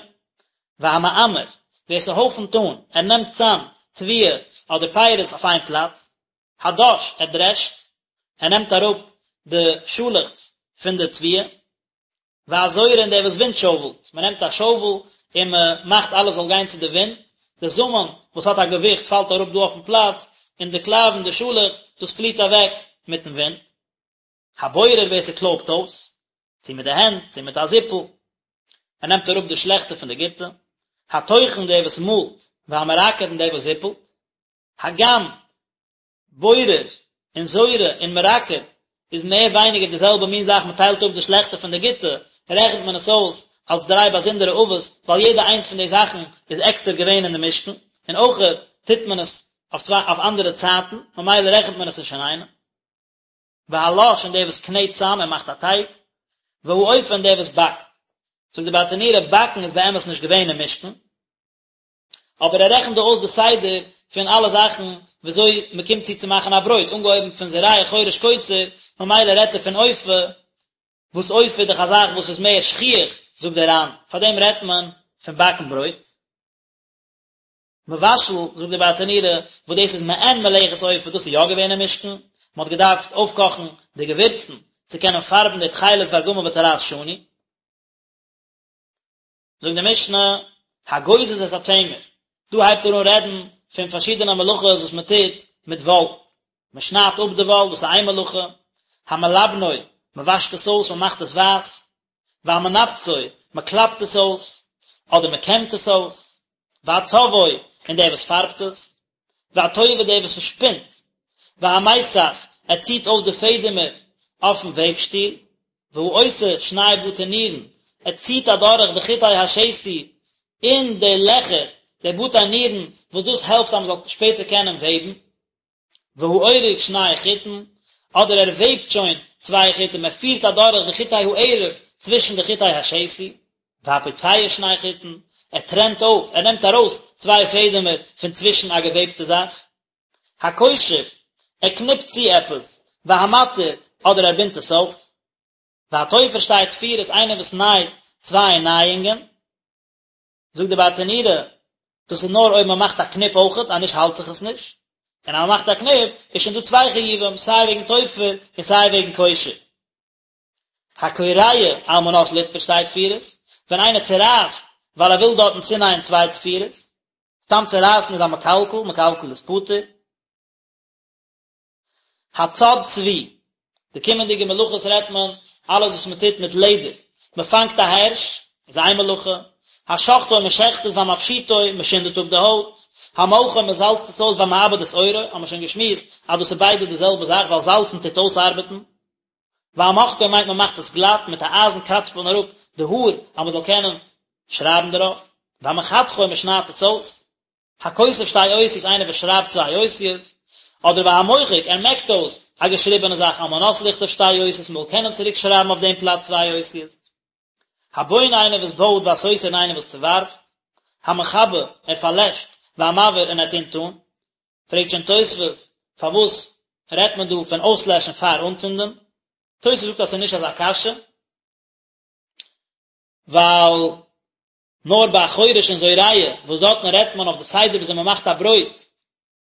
והמעמר, ווער ס'הויפנט אן, ער נעמט צאם תבואה אדער פירות אויף איין פלאץ, הדש, ער דרעשט, ער נעמט אראפ די שאלעכץ פון די תבואה, והזורה און דער וואס ווינט שאוועלט, מען נעמט א שאוועל און מען מאכט אלעס זאל גיין צו די ווינט, די זאמען וואס האט א געוויכט פאלט אראפ דא אויפן פלאץ, און די קלייוון, די שאלעכץ, דאס פליט אוועק מיטן ווינט. הבורר ווער ס'קלויבט אויס, צו מיט די הענט, צו מיט א זיפל, ער נעמט אראפ די שלעכטע פון די גוטע, הטוחן דער וואס מאלט, והמרקד און דער וואס זיפלט, הגם בורר און זורה און מרקד איז מער ווייניגער די זעלבע מין זאך, מען טיילט אפ די שלעכטע פון די גוטע, רעכנט מען עס אויס אלס דריי באזונדערע אבות, ווייל יעדע איינס פון די זאכן איז עקסטער געווען אין די משכן, און אויכעט טוט מען עס אויף צוויי אויף אנדערע צייטן, ממילא רעכנט מען עס נישט אינאיינעם. והלש און דער וואס קנעט צאם און מאכט א טייג, והאופה און דער וואס באקט. זאגט די ברטנורא, באקן איז באמת נישט געווען אין משכן, אבער ער רעכנט דא אויס די סדר פון אלע זאכן וויאזוי מען קומט צו צו מאכן א ברויט, אנגעהויבן פון זורע חורש קוצר, ממילא רעדט ער פון אופה, וואס אופה איז דאך א זאך וואס איז מער שכיח, זאגט דער ר"ן, פארדעם רעדט מען פון באקן ברויט. מבשל, זאגט די ברטנורא, וואס דאס איז מעין מלאכת אופה, דאס איז יא געווען אין משכן, מען האט געדארפט אויפקאכן די געווירצן צו קענען פארבן די תכלת וארגמן ותולעת שני. זאגט די משנה, הגוזז את הצמר, דא הייבט ער אן רעדן פון פארשידענע מלאכות וואס מען טוט מיט וואל, מען שניידט אפ די וואל, דאס איז איין מלאכה, המלבנו, מען וואשט עס אויס, מען מאכט עס ווייס, והמנפצו, מען קלאפט עס אויס, אדער מען קעמט עס אויס, והצובעו, און דער וואס פארבט עס, והטווה דער וואס עס שפינט, והמיסך, ער ציט אויס די פעדעמער אויפן וועבשטיל, והעושה שני בתי נירין, ער ציט אדורך די חוטי השתי אין די לעכער, די בתי נירין, וואס דאס העלפט אז מען זאל שפעטער קענען וועבן. והאורג שני חוטין, אדער ער וועבט שוין צוויי חוטים, ער פירט אדורך די חוטי הערב צווישן די חוטי השתי, והפוצע שני חוטין, ער טרענט אויף, ער נעמט ארויס צוויי פעדעמער פון צווישן א געוועבטע זאך. הקושר, ער קניפט צו עפעס, והמתיר, אדער ער בינדט עס אויף. והתופר שתי תפירות, איינער וואס נייט צוויי נייאונגען. זאגט די ברטנורא, דאס איז נאר אויב מען מאכט א קניפ אויכעט, אז נישט האלט זיך עס נישט, און אז מען מאכט א קניפ איז שוין דא צוויי חיובים, סיי וועגן תופר און סיי וועגן קושר. הקורע על מנת לתפור שתי תפירות, ווען איינער צורייסט ווייל ער וויל דארטן צונייען צוויי תפירות, סתם צורייסן איז א מקלקל, מקלקל איז פטור. הצד צבי, די קומענדיגע מלאכות רעדט מען אלעס וואס מען טוט מיט לעדער, מען פאנגט א הערש, איז איין מלאכה, השוחטו מען שעכט עס והמפשיטו מען שינדעט אפ די הויט, המולחו מען זאלצט עס אויס והמעבד את עורו, האבן מיר שוין געשמועסט אז דאס איז ביידע די זעלבע זאך ווייל זאלצן טוט אויסארבעטן, והמוחקו מיינט מען מאכט עס גלאט, מיט א אייזן קראצט מען אראפ די האר אז מען זאל קענען שרייבן דערויף, והמחתכו מען שניידט עס אויס. הכותב שתי אותיות איינער וואס שרייבט צוויי אותיות, אדער והמוחק ער מעקט אויס א געשריבענע זאך על מנת לכתוב שתי אותיות מ'זאל קענען צוריק שרייבן אויף דעם פלאץ צוויי אותיות. הבונה איינער וואס בויט והסותר און איינער וואס צעווארפט. המכבה ער פארלעשט, והמבעיר און ער צינדט אן. פרעגט שוין תוספות פארוואס רעדט מען דא פון אויסלעשן פאר אנצינדען? תוספות זאגט אז ס'איז נישט אזא קשיא, ווייל נאר ביי חורש און זורע, וואס דארטן רעדט מען אויף די סדר וויאזוי מען מאכט א ברויט,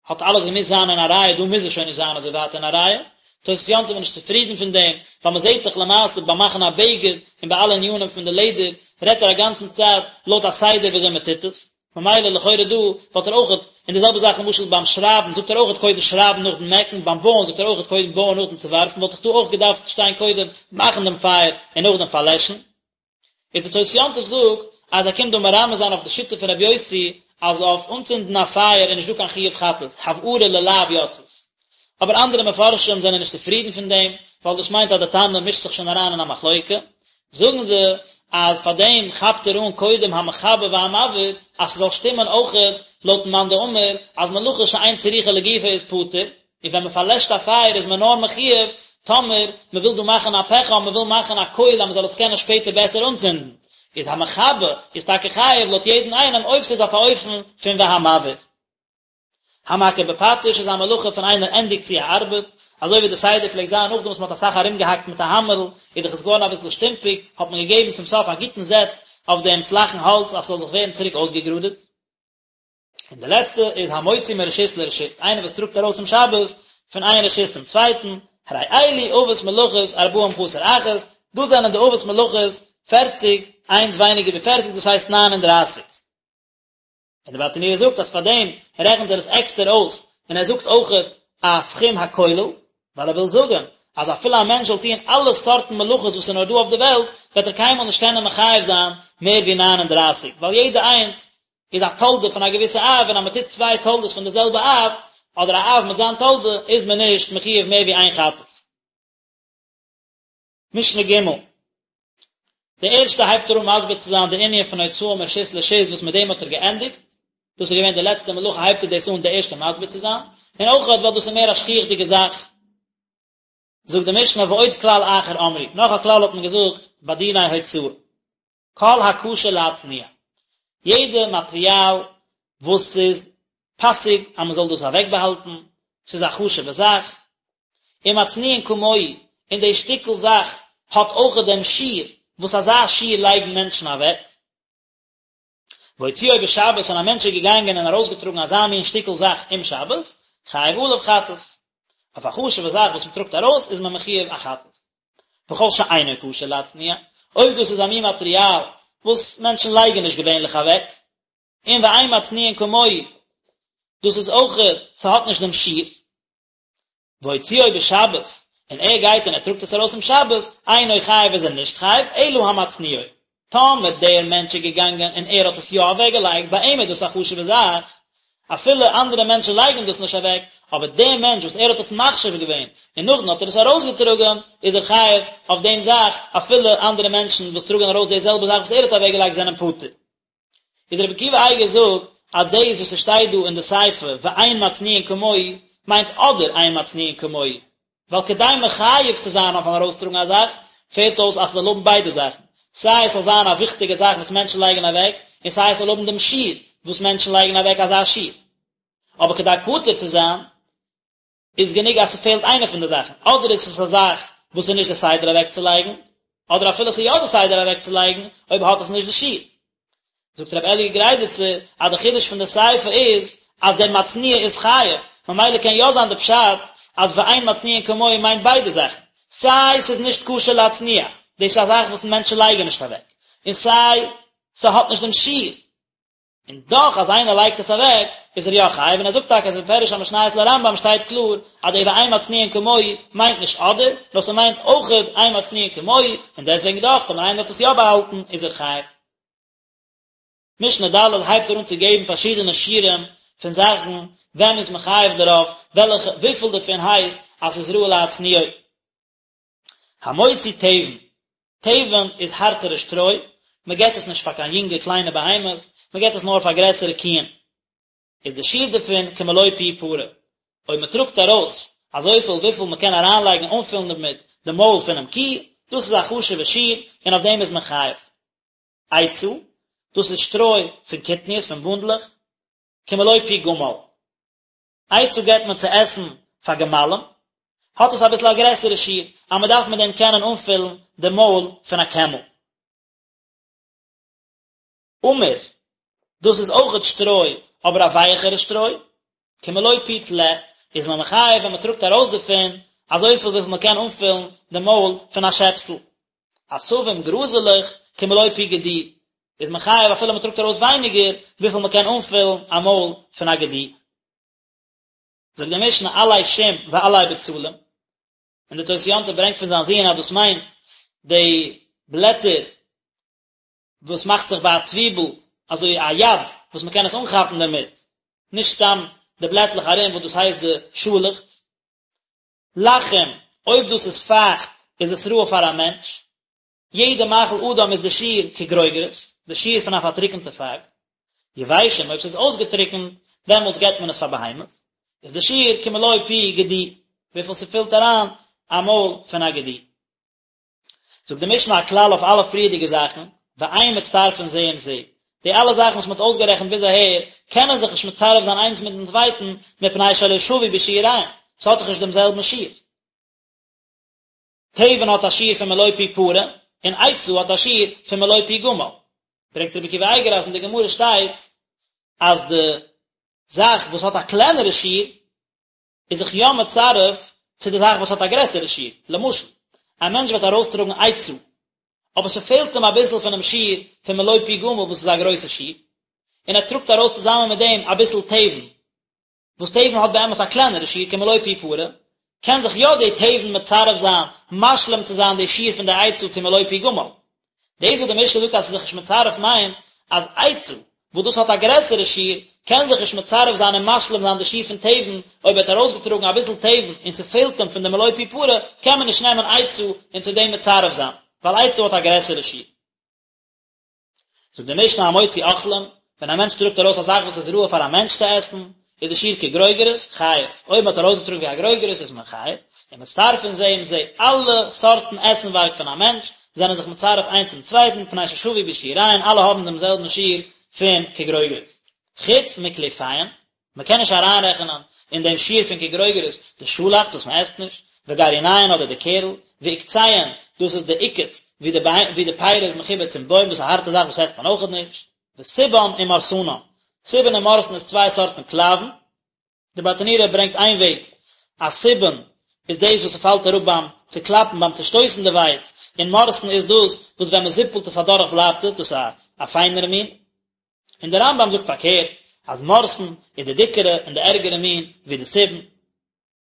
האט אלעס געמוזט זיין אין א רייע, דא מוז עס שוין נישט זיין אזוי ווייט אין א רייע. תוס' יום טוב איז נישט צופרידן פון דעם, ווייל מען זעט דאך למעשה ביים מאכן א בגד און ביי אלע ענינים פון די לעדער, רעדט ער א גאנצן צייט לויט א סדר וויאזוי מען טוט עס. ממילא לכאורה דא וואלט ער אויכעט, און די זעלבע זאך למשל ביים שרייבן זאגט ער אויכעט קודם שרייבן נאכדעם מעקן, ביים בויען זאגט ער אויכעט קודם בויען נאכדעם צוווארפן, וואלט דאך דא אויך געדארפט שטיין קודם מאכן דעם פייער און נאכדעם פארלעשן. איז די תוס' יום טוב זאגט אז ער קומט דא מרמז זיין אויף די שיטה פון רבי יוסי אז אויף אנצינדן א פייער איז נישט דא קיין חיוב חטאת, הבערה ללאו יצאת. אבער אנדערע מפרשים זענען נישט צופרידן פון דעם, ווייל דאס מיינט אז די תנא מישט זיך שוין אריין אין א מחלוקה. זאגן זיי אז פאר דעם כאפט ער אן קודם המכבה והמבעיר אז ס'זאל שטימען אויכעט לויטן מאן דאמר אז מלאכה שאין צריכה לגופה איז פטור, און ווען מ'פארלעשט א פייער איז מען נאר מחיוב טאמער מ'וויל דא מאכן א פחם, מ'וויל מאכן א קויל אז מ'זאל עס קענען שפעטער בעסער אנצינדן, איז המכבה איז טאקע חייב לויט יעדן איינעם אויב ס'איז אויף א אופן פון והמבעיר. המכה בפטיש איז א מלאכה פון איינער ענדיגט צו א ארבעט, אזוי ווי די סדר פלעגט זיין נאכדעם וואס מען האט אסאך ארומגעהאקט מיט א האמערל, איז דאך עס געווארן אביסל שטומפיג, האט מען געגעבן צום סוף א גוטן זעץ אויף דעם פלאכן האלץ אז ס'זאל זיך ווערן צוריק אויסגעגראדעט. און די לעצטע איז המוציא מרשות לרשות, איינער וואס טראגט ארויס אום שבת פון איין רשות צום צווייטן, הרי אלו אבות מלאכות ארבעים חסר אחת, דאס זענען די אבות מלאכות פערציג, איינס ווייניגער ווי פערציג דאס הייסט ניין און דרייסיג. און דער ברטנורא זאגט אז פאר דעם רעכנט ער עס עקסטער אויס, און ער זאגט אויכעט א סכום הכולל, ווייל ער וויל זאגען אז אפילו א מענטש זאל טוען אלע סארטן מלאכות וואס איז נאר דא אויף די וועלט, וועט ער קיינמאל נישט קענען מחייב זיין מער ווי 39, ווייל יעדע איינס איז א תולדה פון א געוויסע אב, און אז מען טוט צוויי תולדות פון די זעלבע אב, אדער א אב מיט זיין תולדה, איז מען נישט מחויב מער ווי איין חטאת. משנה ג' די ערשטע הייבט ער אן מסביר צו זיין די ענין פון הוצאה מרשות לרשות וואס מיט דעם האט ער געענדיגט, דאס איז געווען די לעצטע מלאכה הייבט ער דאס אן די ערשטע מסביר צו זיין, און אויך ווייל דאס איז מער א שכיח'דיגע זאך. זאגט די משנה ועוד כלל אחר אמרו, נאך א כלל האט מען געזאגט ביי דיני הוצאה. כל הכשר להצניע, יעדע מאטריאל וואס איז פאסיג אז מען זאל דאס אוועקבאהאלטן, ס'איז א חשוב'ע זאך, ומצניעין כמוהו, און די שטיקל זאך האט אויכעט דעם שיעור וואס אזא שיעור לייגן מענטשן אוועק. והוציאו בשבת און א מענטש איז געגאנגען און ארויסגעטראגן אזא מין שטיקל זאך אום שבת, חייב עליו חטאת. אויף א חשוב'ע זאך וואס מען טראגט ארויס איז מען מחיוב א חטאת. וכל שאינו כשר להצניע, אויב דאס איז א מין מאטריאל וואס מענטשן לייגן נישט געווענליך אוועק, און ואין מצניעין כמוהו, דאס איז אויכעט, ס'האט נישט דעם שיעור. והוציאו בשבת, און ער גייט און ער טראגט עס ארויס אום שבת, אינו חייב איז ער נישט חייב, אלא המצניעו. טאמער דער מענטש איז געגאנגען און ער האט עס יא אוועקגעלייגט, ביי אים איז דאס א חשוב'ע זאך, אפילו אנדערע מענטשן לייגן דאס נישט אוועק, אבער דער מענטש וואס ער האט עס מחשיב געווען, און נאכדעם האט ער עס ארויסגעטראגן, איז ער חייב אויף דעם זאך, אפילו אנדערע מענטשן וואס טראגן ארויס די זעלבע זאך וואס ער האט אוועקגעלייגט זענען פטור. איז רבי עקיבא אייגער זאגט אז דאס וואס עס שטייט דא אין די סיפא ואין מצניעין כמוהו מיינט אדער אין מצניעין כמוהו, ווייל כדי מחייב צו זיין אויפן ארויסטראגן א זאך פעלט אויס אז ס'זאל האבן ביידע זאכן, סיי עס זאל זיין א וויכטיגע זאך וואס מענטשן לייגן אוועק, און סיי עס זאל האבן דעם שיעור וואס מענטשן לייגן אוועק אזא שיעור. אבער כדי פטור צו זיין איז גענוג אז ס'פעלט איינע פון די זאכן, אדער איז עס א זאך וואס איז נישט די סדר אוועקצולייגן, אדער אפילו ס'איז יא די סדר אוועקצולייגן, אויב האט עס נישט די שיעור. זאגט רבי אלי' גריידיצער אז די חידוש פון די סיפא איז אז דער מצניע איז חייב, ממילא קען יא זיין די פשט אז ואין מצניעין כמוהו מיינט ביידע זאכן, סיי ס'איז נישט כשר להצניע, דאס איז א זאך וואס מענטשן לייגן נישט אוועק, און סיי ס'האט נישט דעם שיעור. און דאך אז איינער לייגט עס אוועק איז ער יא חייב, און ער זאגט טאקע אז אין פירוש המשניות לרמב"ם שטייט קלאר אז די ואין מצניעין כמוהו מיינט נישט אדער, נאר ס'מיינט אויכעט אין מצניעין כמוהו, און דעסוועגן דאך טאמער איינער האט עס יא באהאלטן איז ער חייב. משנה ד' הייבט ער אן צו געבן פארשידענע שיעורים פון זאכן ווען מ'איז מחייב דערויף, וועלכע וויפיל דערפון הייסט אז ס'איז ראוי להצניעו. המוציא תבן, תבן איז הארטערע שטרוי, מען געט עס נישט פאר קיין יונגע קליינע בהמות, מען געט עס נאר פאר גרעסערע קיען. איז די שיעור דערפון כמלוא פי פרה, אויב מען טראגט ארויס אזויפיל וויפיל מען קען אריינלייגן און אנפילן דערמיט די מויל פונעם קי, דאס איז א חשוב'ע שיעור און אויף דעם איז מען חייב. עצה, דאס איז שטרוי פון קטניות, פון בונדלעך, כמלוא פי גמל. עצה געבט מען צו עסן פאר גמלים, האט עס אביסל א גרעסערע שיעור, אז מען דארף מיט דעם קענען אנפילן די מויל פון א קעמל. עמיר, דאס איז אויכעט שטרוי, אבער א ווייעכערע שטרוי, כמלוא פי טלה, איז מען מחייב ווען מען טראגט ארויס דערפון אזויפיל וויפיל מען קען אנפילן די מויל פון א שעפסל. עשבים, גראזעלעך, כמלוא פי גדי. איז מען חייב אפילו מען טראגט ארויס ווייניגער וויפיל מען קען אנפילן א מויל פון א גדי. זאגט די משנה עלי שום ועלי בצלים, און די תוס' יום טוב ברענגט פון זיין זוהן אז דאס מיינט די בלעטער וואס מאכט זיך ביי א צוויבל אזוי א יד וואס מען קען עס אנכאפן דערמיט, נישט סתם די בלעטלעך ארום וואס דאס הייסט די שאלעכץ. לחים, אויב דאס איז פייכט איז עס ראוי פאר א מענטש, יעדע מאכל אדם איז די שיעור כגרוגרת, די שיעור פון א פארטריקענטע פייג. יבשים, אויב ס'איז אויסגעטריקענט, דעמאלטס געבט מען עס פאר בהמות, איז די שיעור כמלוא פי גדי, וויפיל ס'פילט אריין א מויל פון א גדי. זאגט די משנה א כלל אויף אלע פריערדיגע זאכן, ואין מצטרפין זה עם זה, די אלע זאכן וואס מ'האט אויסגערעכנט ביז אהער, קענען זיך נישט מצרף זיין איינס מיטן צווייטן, מפני שלא שוו בשיעוריהן, ס'האט דאך נישט דעם זעלבן שיעור. תבן האט א שיעור פון מלא פי פרה, און עצה האט א שיעור פון מלא פי גמל. ברענגט רבי עקיבא אייגער אז אין די גמרא שטייט אז די זאך וואס האט א קלענערע שיעור איז זיך יא מצרף צו די זאך וואס האט א גרעסערע שיעור. למשל, א מענטש וועט ארויסטראגן עצה, אבער ס'פעלט אים אביסל פונעם שיעור פון מלא פי גמל וואס איז א גרויסע שיעור, און ער טראגט ארויס צוזאמען מיט דעם אביסל תבן, וואס תבן האט באמת א קלענערע שיעור כמלוא פי פרה, קען זיך יא די תבן מצרף זיין משלים צו זיין די שיעור פון די עצה צו מלוא פי גמל. דאס וואס די משנה זאגט אז ס'איז זיך נישט מצרף מיינט אז עצה וואס דאס האט א גרעסערע שיעור קען זיך נישט מצרף זיין און משלים זיין די שיעור פון תבן, אויב ער האט ארויסגעטראגן אביסל תבן און ס'פעלט אים פון די מלוא פי פרה קען מען נישט נעמען עצה און צו דעם מצרף זיין, ווייל עצה האט א גרעסערע שיעור. זאגט די משנה המוציא אוכלים, ווען א מענטש טראגט ארויס א זאך וואס איז ראוי פאר א מענטש צו עסן, איז די שיעור כגרוגרת, חייב, אויב מען האט ארויסגעטראגן ווי א גרוגרת איז מען חייב, ומצטרפין זה עם זה, אלע סארטן עסנווארג פון א מענטש זענען זיך מצרף איינס צום צווייטן, מפני ששוו בשיעוריהן, אלע האבן דעם זעלבן שיעור פון כגרוגרת. חוץ מקליפיהן, מען קען נישט אריינרעכענען אין דעם שיעור פון כגרוגרת די שאלאכץ וואס מען עסט נישט, וגרעיניהן אדער די קערל, ועוקציהן, דאס איז די עוקץ ווי די ווי די פירי איז מחובר צום בוים, דאס איז א הארטע זאך וואס עסט מען אויכעט נישט, וסובן ומורסנן, סובן און מורסן איז צוויי סארטן קלייוון, די ברטנורא ברענגט איין וועג אז סובן איז דאס וואס ס'פאלט אראפ ביים צוקלאפן ביים צושטויסן די ווייץ, און מורסן איז דאס וואס ווען מען זיפלט עס אדורך בלייבט עס, דאס איז א פיינערע מין. און דער רמב"ם זאגט פארקערט, אז מורסן איז די דיקערע און די ערגערע מין ווי די סובין.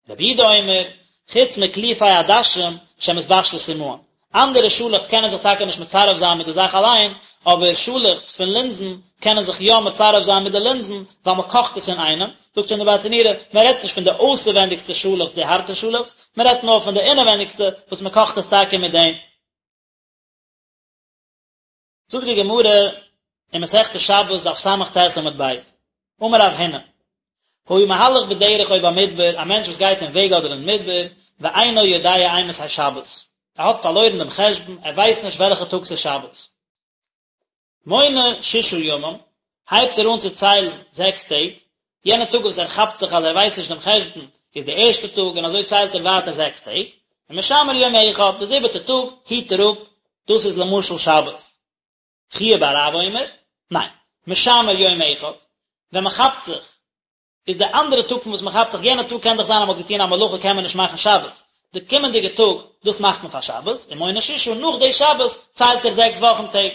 רבי יהודה אומר, חוץ מקליפי עדשים שמתבשלות עמהן. אנדערע שאלעכץ קענען זיך טאקע נישט מצרף זיין מיט די זאך אליין, אבער שאלעכץ פון לינזן קענען זיך יא מצרף זיין מיט די לינזן, ווייל מען קאכט עס אינאיינעם. זאגט שוין די ברטנורא, מען רעדט נישט פון די אויסערווענדיגסטע שאלעכץ, די הארטע שאלעכץ, מען רעדט נאר פון די אינערווענדיגסטע וואס מען קאכט עס טאקע מיט דעם. זאגט די גמרא אין מסכת שבת דף ס"ט עמוד ב', אמר רב הונא, היה מהלך בדרך או במדבר, א מענטש וואס גייט אין וועג אדער אין מדבר, ואינו יודע אימתי שבת, ער האט פארלוירן דעם חשבון, ער ווייסט נישט וועלכע טאג ס'איז שבת. מונה ששה ימים, הייבט ער אן צו ציילן זעקס טעג, יענע טאג וואס ער כאפט זיך אז ער ווייסט נישט דעם חשבון איז די ערשטע טאג און אזוי ציילט ער ווייטער זעקס טעג, ומשמר יום אחד, די זיבעטע טאג היט ער אפ, דאס איז למשל שבת. חייא בר רב אומר, ניין, משמר יום אחד, ווען מען כאפט זיך, איז די אנדערע טאג פון וואס מען כאפט זיך, יענע טאג קען דאך זיין אז מען האט געטון א מלאכה קען מען נישט מאכן שבת, די קומענדיגע טאג, דאס מאכט מען פאר שבת, ומונה ששה, נאך די שבת ציילט ער זעקס וואכן טעג.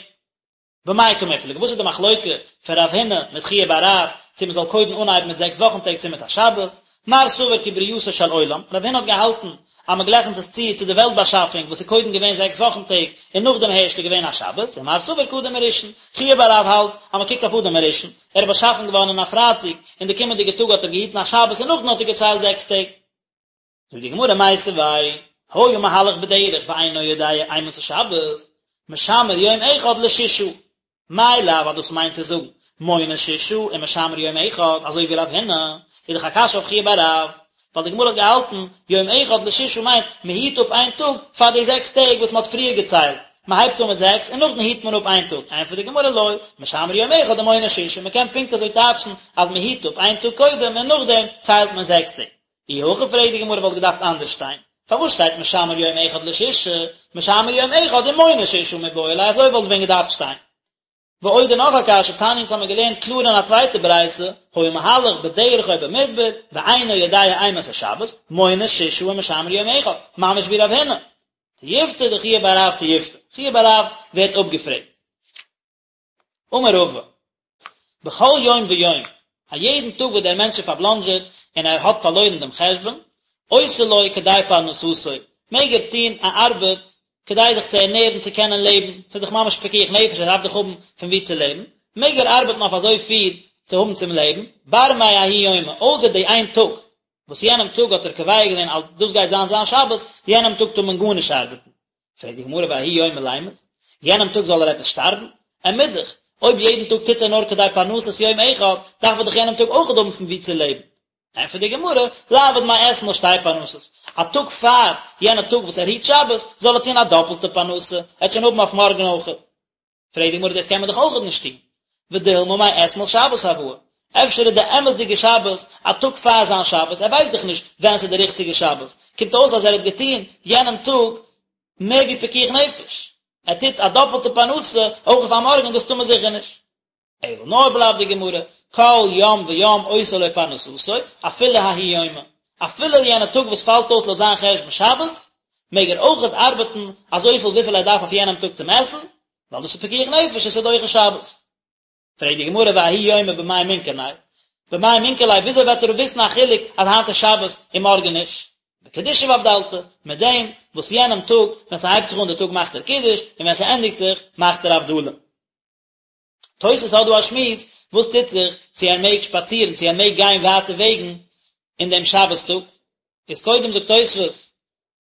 במאי קמיפלגי, וואס איז די מחלוקה פון רב הונא מיט חייא בר רב, צו מען זאל קודם אנהייבן מיט זעקס וואכן טעג צו מיט א שבת? מר סבר כברייתו של עולם, רב הונא האט געהאלטן אז מען גלייכנט עס צו צו די וועלט באשאפונג וואס איז קודם געווען זעקס וואכן טעג און נאכדעם הערשט איז געווען א שבת, און מר סבר כאדם הראשון, חייא בר רב האלט אז מען קוקט אויף אדם הראשון, ער איז באשאפן געווארן אין א פרייטאג, און די קומענדיגע טאג האט ער געהיטן א שבת און נאכדעם האט ער געציילט זעקס טעג. זאגט די גמרא מיתיבי, היה מהלך בדרך ואינו יודע אימתי שבת, משמר יום אחד לשישה, מאי לאו אז דאס מיינט צו זאגן מונה שישה ומשמר יום אחד, אזוי ווי רב הונא, איז דאך א קשיא אויף חייא בר רב, ווייל די גמרא האט געהאלטן יום אחד לשישה מיינט מען היט אפ איין טאג פאר די זעקס טעג וואס מען האט פריער געציילט, מען הייבט אן מיט זעקס און נאכדעם היט מען אפ איין טאג, ענטפערט די גמרא לא, משמר יום אחד ומונה שישה, מען קען פונקט אזוי טייטשן אז מען היט אפ איין טאג קודם און נאכדעם ציילט מען זעקס טעג. אי הכי פרעגט די גמרא וואלט געדארפט אנדערש שטיין, פארוואס שטייט משמר יום אחד לשישה, משמר יום אחד ומונה שישה מיבעי ליה אזוי וואלט ווען געדארפט שטיין. ועוד און נאך א קשיא, תניא אונז האמיר געלערנט קלאר אין א צווייטע ברייתא, היה מהלך בדרך או במדבר, ואינו יודע אימתי שבת, מונה שישה ומשמר יום אחד, ממש ווי רב הונא. תיובתא דחייא בר רב תיובתא, חייא בר רב ווערט אפגעפרעגט. אמר רבא, בכל יום ויום, א יעדן טאג וואס דער מענטש איז פארבלאנדזשעט און ער האט פארלוירן דעם חשבון, עושה לו כדי פרנסתו, מעג ער טון א ארבעט כדי זיך צו ערנערן צו קענען לעבן, ס'איז דאך ממש פיקוח נפש ער דארף דאך האבן פון וואו צו לעבן, מעג ער ארבעטן אויף אזוי פיל צו האבן צום לעבן, בר מההוא יומא, אויסער די איין טאג וואס יענעם טאג האט ער קובע געווען אז דאס גייט זיין זיין שבת, יענעם טאג טאר מען גארנישט ארבעטן. פרעגט די גמרא וההוא יומא לימות, יענעם טאג זאל ער עפעס שטארבן? ער מוז דאך, אויב יעדן טאג טוט ער נאר כדי פרנסת יום אחד, דארף ער דאך יענעם טאג אויכעט האבן פון וואו צו לעבן. ענטפערט די גמרא, ליעביד מאתמול שתי פרנסות, א טאג פאר יענע טאג וואס ער היט שבת, זאל ער טון א דאפלטע פרנסה, ער וועט שוין האבן אויף מארגן אויכעט. פרעגט די גמרא דאס קען מען דאך אויכעט נישט טון, ודילמא מאתמול שבת הואי, אפשר איז די אמת'דיגע שבת א טאג פאר זיין שבת, ער ווייסט דאך נישט ווען ס'איז די ריכטיגע שבת, קומט אויס אז ער האט געטון יענעם טאג מער ווי פיקוח נפש, ער טוט א דאפלטע פרנסה אויך אויף א מארגן, דאס טאר מען זיכער נישט. אלא נאר בלייבט די גמרא, כל יום ויום עושה לו פרנסתו, אפילו ההוא יומא, אפילו יענע טאג וואס פאלט אויס לויט זיין חשבון שבת, מעג ער אויכעט ארבעטן אזויפיל וויפיל ער דארף אויף יענעם טאג צום עסן, ווייל דאס איז פיקוח נפש און ס'איז דוחה שבת. פרעגט די גמרא וההוא יומא במאי מינכר ליה, במאי מינכר ליה וויאזוי וועט ער וויסן א חילוק אז היינט איז שבת און מארגן נישט? בקידושא ואבדלתא, מיט דעם וואס יענעם טאג ווען ס'הייבט זיך אן די טאג מאכט ער קידוש און ווען ס'ענדיגט זיך מאכט ער הבדלה. תוס' האט דא א שמועס, וואס טוט זיך צו ער מעג שפאצירן, צו ער מעג גיין ווייטע וועגן אין דעם שבת טאג, איז קודם זאגט תוס'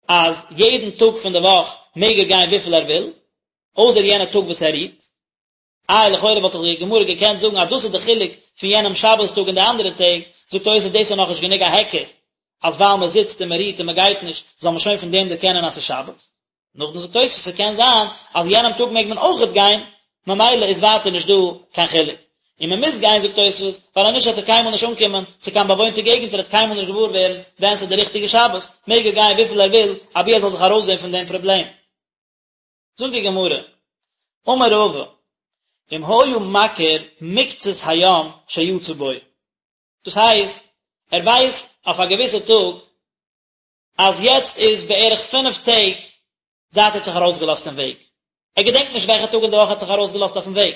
אז יעדן טאג פון די וואך מעג ער גיין וויפיל ער וויל, אויסער יענע טאג וואס ער רוהט. איי לכאורה וואלט דאך די גמרא געקענט זאגן אז דאס איז די חילוק פון יענעם שבת טאג און די אנדערע טעג, זאגט תוס' דאס איז נאכנישט גענוג א היכר אז ווייל מען זיצט און מען רוהט און מען גייט נישט זאל מען שוין פון דעם דערקענען אז ס'איז שבת. נאכדעם זאגט תוס' ס'קען זיין אז יענעם טאג מעג מען אויכעט גיין, ממילא איז ווייטער נישט דא קיין חילוק. און מען מוז גיין זאגט תוס' ווייל אנישט וועט ער קיינמאל נישט אנקומען צו קיין באוואוינטע געגנט ער וועט קיינמאל נישט געוואר ווערן ווען ס'איז די ריכטיגע שבת, מעג ער גיין וויפיל ער וויל אבי ער זאל זיך ארויסזען פון דעם פראבלעם. זאגט די גמרא, אמר רבא, אם היה מכיר מקצת היום שיצא בו, דאס הייסט ער ווייסט אויף א געוויסע טאג אז יעצט איז בערך פינף טעג זייט ער האט זיך ארויסגעלאזט אין וועג, ער געדענקט נישט וועלכע טאג אין די וואך ער האט זיך ארויסגעלאזט אויפן וועג,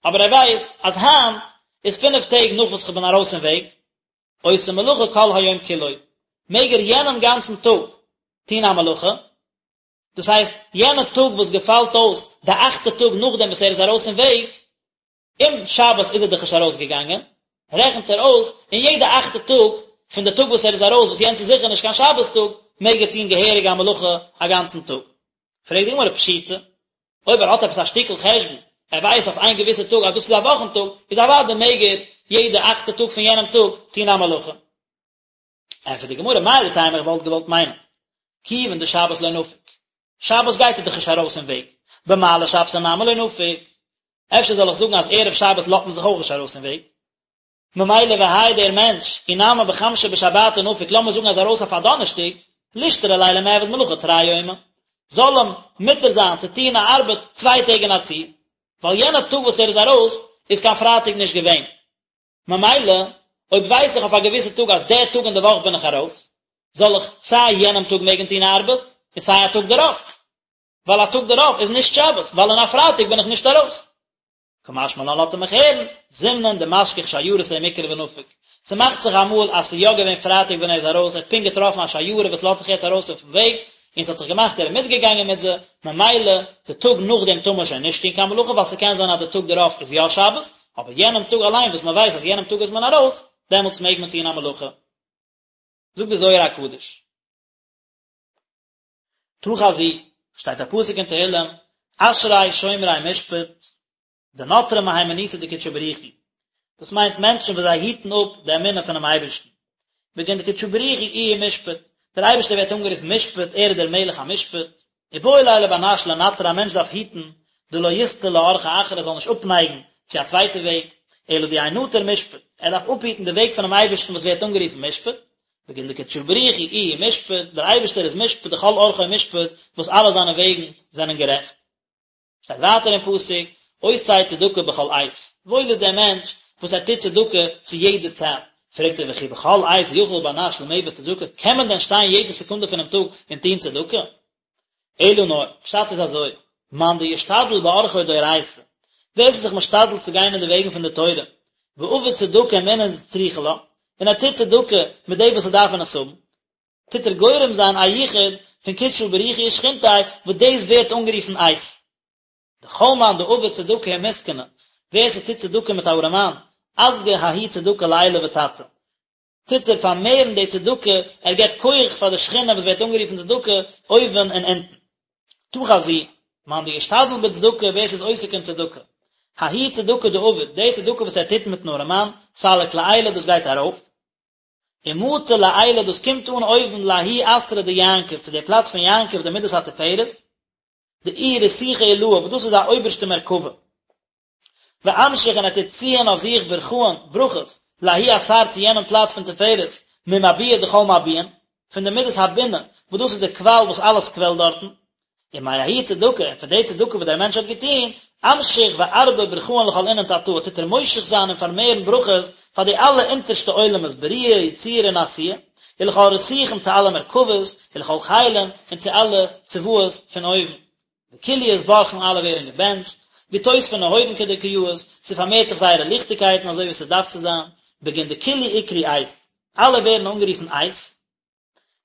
אבער ער ווייסט אז היינט איז פינף טעג נאך וואס כ'בין ארויס אין וועג, עושה מלאכה כל היום כולו, מעג ער יענעם גאנצן טאג טון א מלאכה, דאס הייסט יענע טאג וואס געפאלט אויס די אכטע טאג נאכדעם וואס ער איז ארויס אין וועג, אום שבת איז ער דאך נישט ארויסגעגאנגען, רעכנט ער אויס, און יעדע אכטע טאג פון די טאג וואס ער איז ארויס, וואס יענץ איז זיכער נישט קיין שבת טאג, מעג ער טון געהעריג א מלאכה א גאנצן טאג. פרעגט די גמרא פשיטא, אויב ער האט עפעס א שטיקל חשבון, ער ווייסט אויף איין געוויסע טאג אז דאס איז א וואכן טאג, איז אוודאי מעג ער יעדע אכטע טאג פון יענעם טאג טון א מלאכה. ענטפערט די גמרא, מהו דתימא איך וואלט געוואלט מיינען, כיוון דשבת לא נפיק, שבת גייט ער דאך נישט ארויס אין וועג, במעלי שבתא נמי לא נפיק, אפשר זאל איך זאגן אז ערב שבת לאזט מען זיך אויך נישט ארויס אין וועג, ממילא והאי דער מענטש, אי נמי בחמשא בשבתא נפיק, לאמיר זאגן אז ארויס אויף א דאנערשטאג, לישתרי ליה למיעבד מלאכה תרי יומי, זאל אים מותר זיין צו טון א ארבעט צוויי טעג אין א צי, ווייל יענע טאג וואס ער איז ארויס איז קיין פרייטאג נישט געווען. ממילא, אויב ווייס איך אויף א געוויסע טאג אז דער טאג אין די וואך בין איך ארויס, זאל איך סיי יענעם טאג מעגן טון ארבעט, און סיי א טאג דערויף. ווייל א טאג דערויף איז נישט שבת, ווייל אין א פרייטאג בין איך נישט ארויס. קא משמע לן לאזט ער מיך הערן, זימנין דמשכח שיירתא ומקרי ונפיק. ס'מאכט זיך אמאל אז ס'איז יא געווען פרייטאג ווען ער איז ארויס, ער האט פונקט געטראפן א שיירה וואס לאזט זיך יעצט ארויס אויפן וועג, און ס'האט זיך געמאכט ער איז מיטגעגאנגען מיט זיי, ממילא די טאג נאכדעם טאר מען שוין נישט טון קיין מלאכה ווייל ס'קען זיין אז די טאג דערויף איז יא שבת, אבער יענעם טאג אליין וואס מען ווייסט אז יענעם טאג איז מען ארויס, דעמאלטס מעג מען טון א מלאכה. זאגט די זוהר הקדוש. תא חזי, שטייט א פסוק אין תהילים, אשרי שומרי משפט, דנטרי מהימנותא דקודשא בריך הוא. דאס מיינט מענטשן וואס זיי היטן אפ די אמונה פונעם אייבערשטן. בגין דקודשא בריך הוא איהו משפט, דער אייבערשטער ווערט אנגערופן משפט, ער איז דער מלך המשפט. איבעי ליה לבר נש לנטרא א מענטש דארף היטן דלא יסטי לאורחא אחרא ער זאל נישט אפנייגן צו א צווייטע וועג, אלא דיהא נטיר משפט, ער דארף אפהיטן די וועג פונעם אייבערשטן וואס ווערט אנגערופן משפט, בגין דקודשא בריך הוא איהו משפט, דער אייבערשטער איז משפט דכל אורחוי משפט, וואס אלע זיינע וועגן זענען גערעכט. שטייט ווייטער אין פסוק, עושה צדקה בכל עת, וואויל איז דער מענטש וואס ער טוט צדקה צו יעדע צייט, פרעגט ער וכי בכל עת יכול בר נש למיעבד צדקה, קען מען דען שטיין יעדע סעקונדע פונעם טאג און טון צדקה? אלא נאר, פשט איז אזוי, מאן דישתדל באורחוי דאורייתא, ווער ס'איז זיך משתדל צו גיין אין די וועגן פון די תורה, ועביד צדקה עם אינון דצריכי לה, און ער טוט צדקה מיט די וואס ס'דארפן עס האבן, טוט ער גורם זיין א יחוד פון קודשא בריך הוא ושכינתיה, וואס דאס ווערט אנגערופן עת. דכל מאן דעביד צדקה עם מסכנא, ווער ס'טוט צדקה מיט א ארעמאן, אסגי ההיא צדקה לעילא ותתא, טוט ער פארמערן די צדקה, ער געבט כח פאר די שכינה וואס ווערט אנגערופן צדקה, אויבן און אונטן. תא חזי, מאן דאשתדל בצדקה, ווער ס'איז עוסק אין צדקה. ההיא צדקה דעביד, די צדקה וואס ער טוט מיטן ארעמאן, סליק לעילא דאס גייט ארויף, ומטי לעילא דאס קומט אן אויבן לההוא אתרא דיעקב, צו די פלאץ פון יעקב די מידת התפארת, דאיהי רתיכא עילאה, וואס דאס איז א אויבערשטע מרכבה. ואמשיך און ער טוט ציען אויף זיך ברכאן, ברכות, לההוא אתר צו יענעם פלאץ פון תפארת, ממביע דכל מביעין, פון די מידת הבינה, וואס דאס איז די קוואל וואס אלעס קוועלט דארטן, ומההיא צדקה, און פון די צדקה וואס דער מענטש האט געטון, אמשיך וארבי ברכאן לכל אינון תתאי, טוט ער מושך זיין און פארמערן ברכות פאר די אלע אונטערשטע עולמות, בריאה, יצירה און עשייה, ולכל רתיכין צו אלע מרכבות, ולכל חילין, און צו אלע צבאות פון אויבן. וכולהו אתברכון אלע ווערן געבענטשט, ואתוספן נהורין כדקא יאות, ס'פארמערט זיך זייערע ליכטיגקייטן אזוי ווי ס'דארף צו זיין, בגין דכולהו אקרי עת, אלע ווערן אנגערופן עת,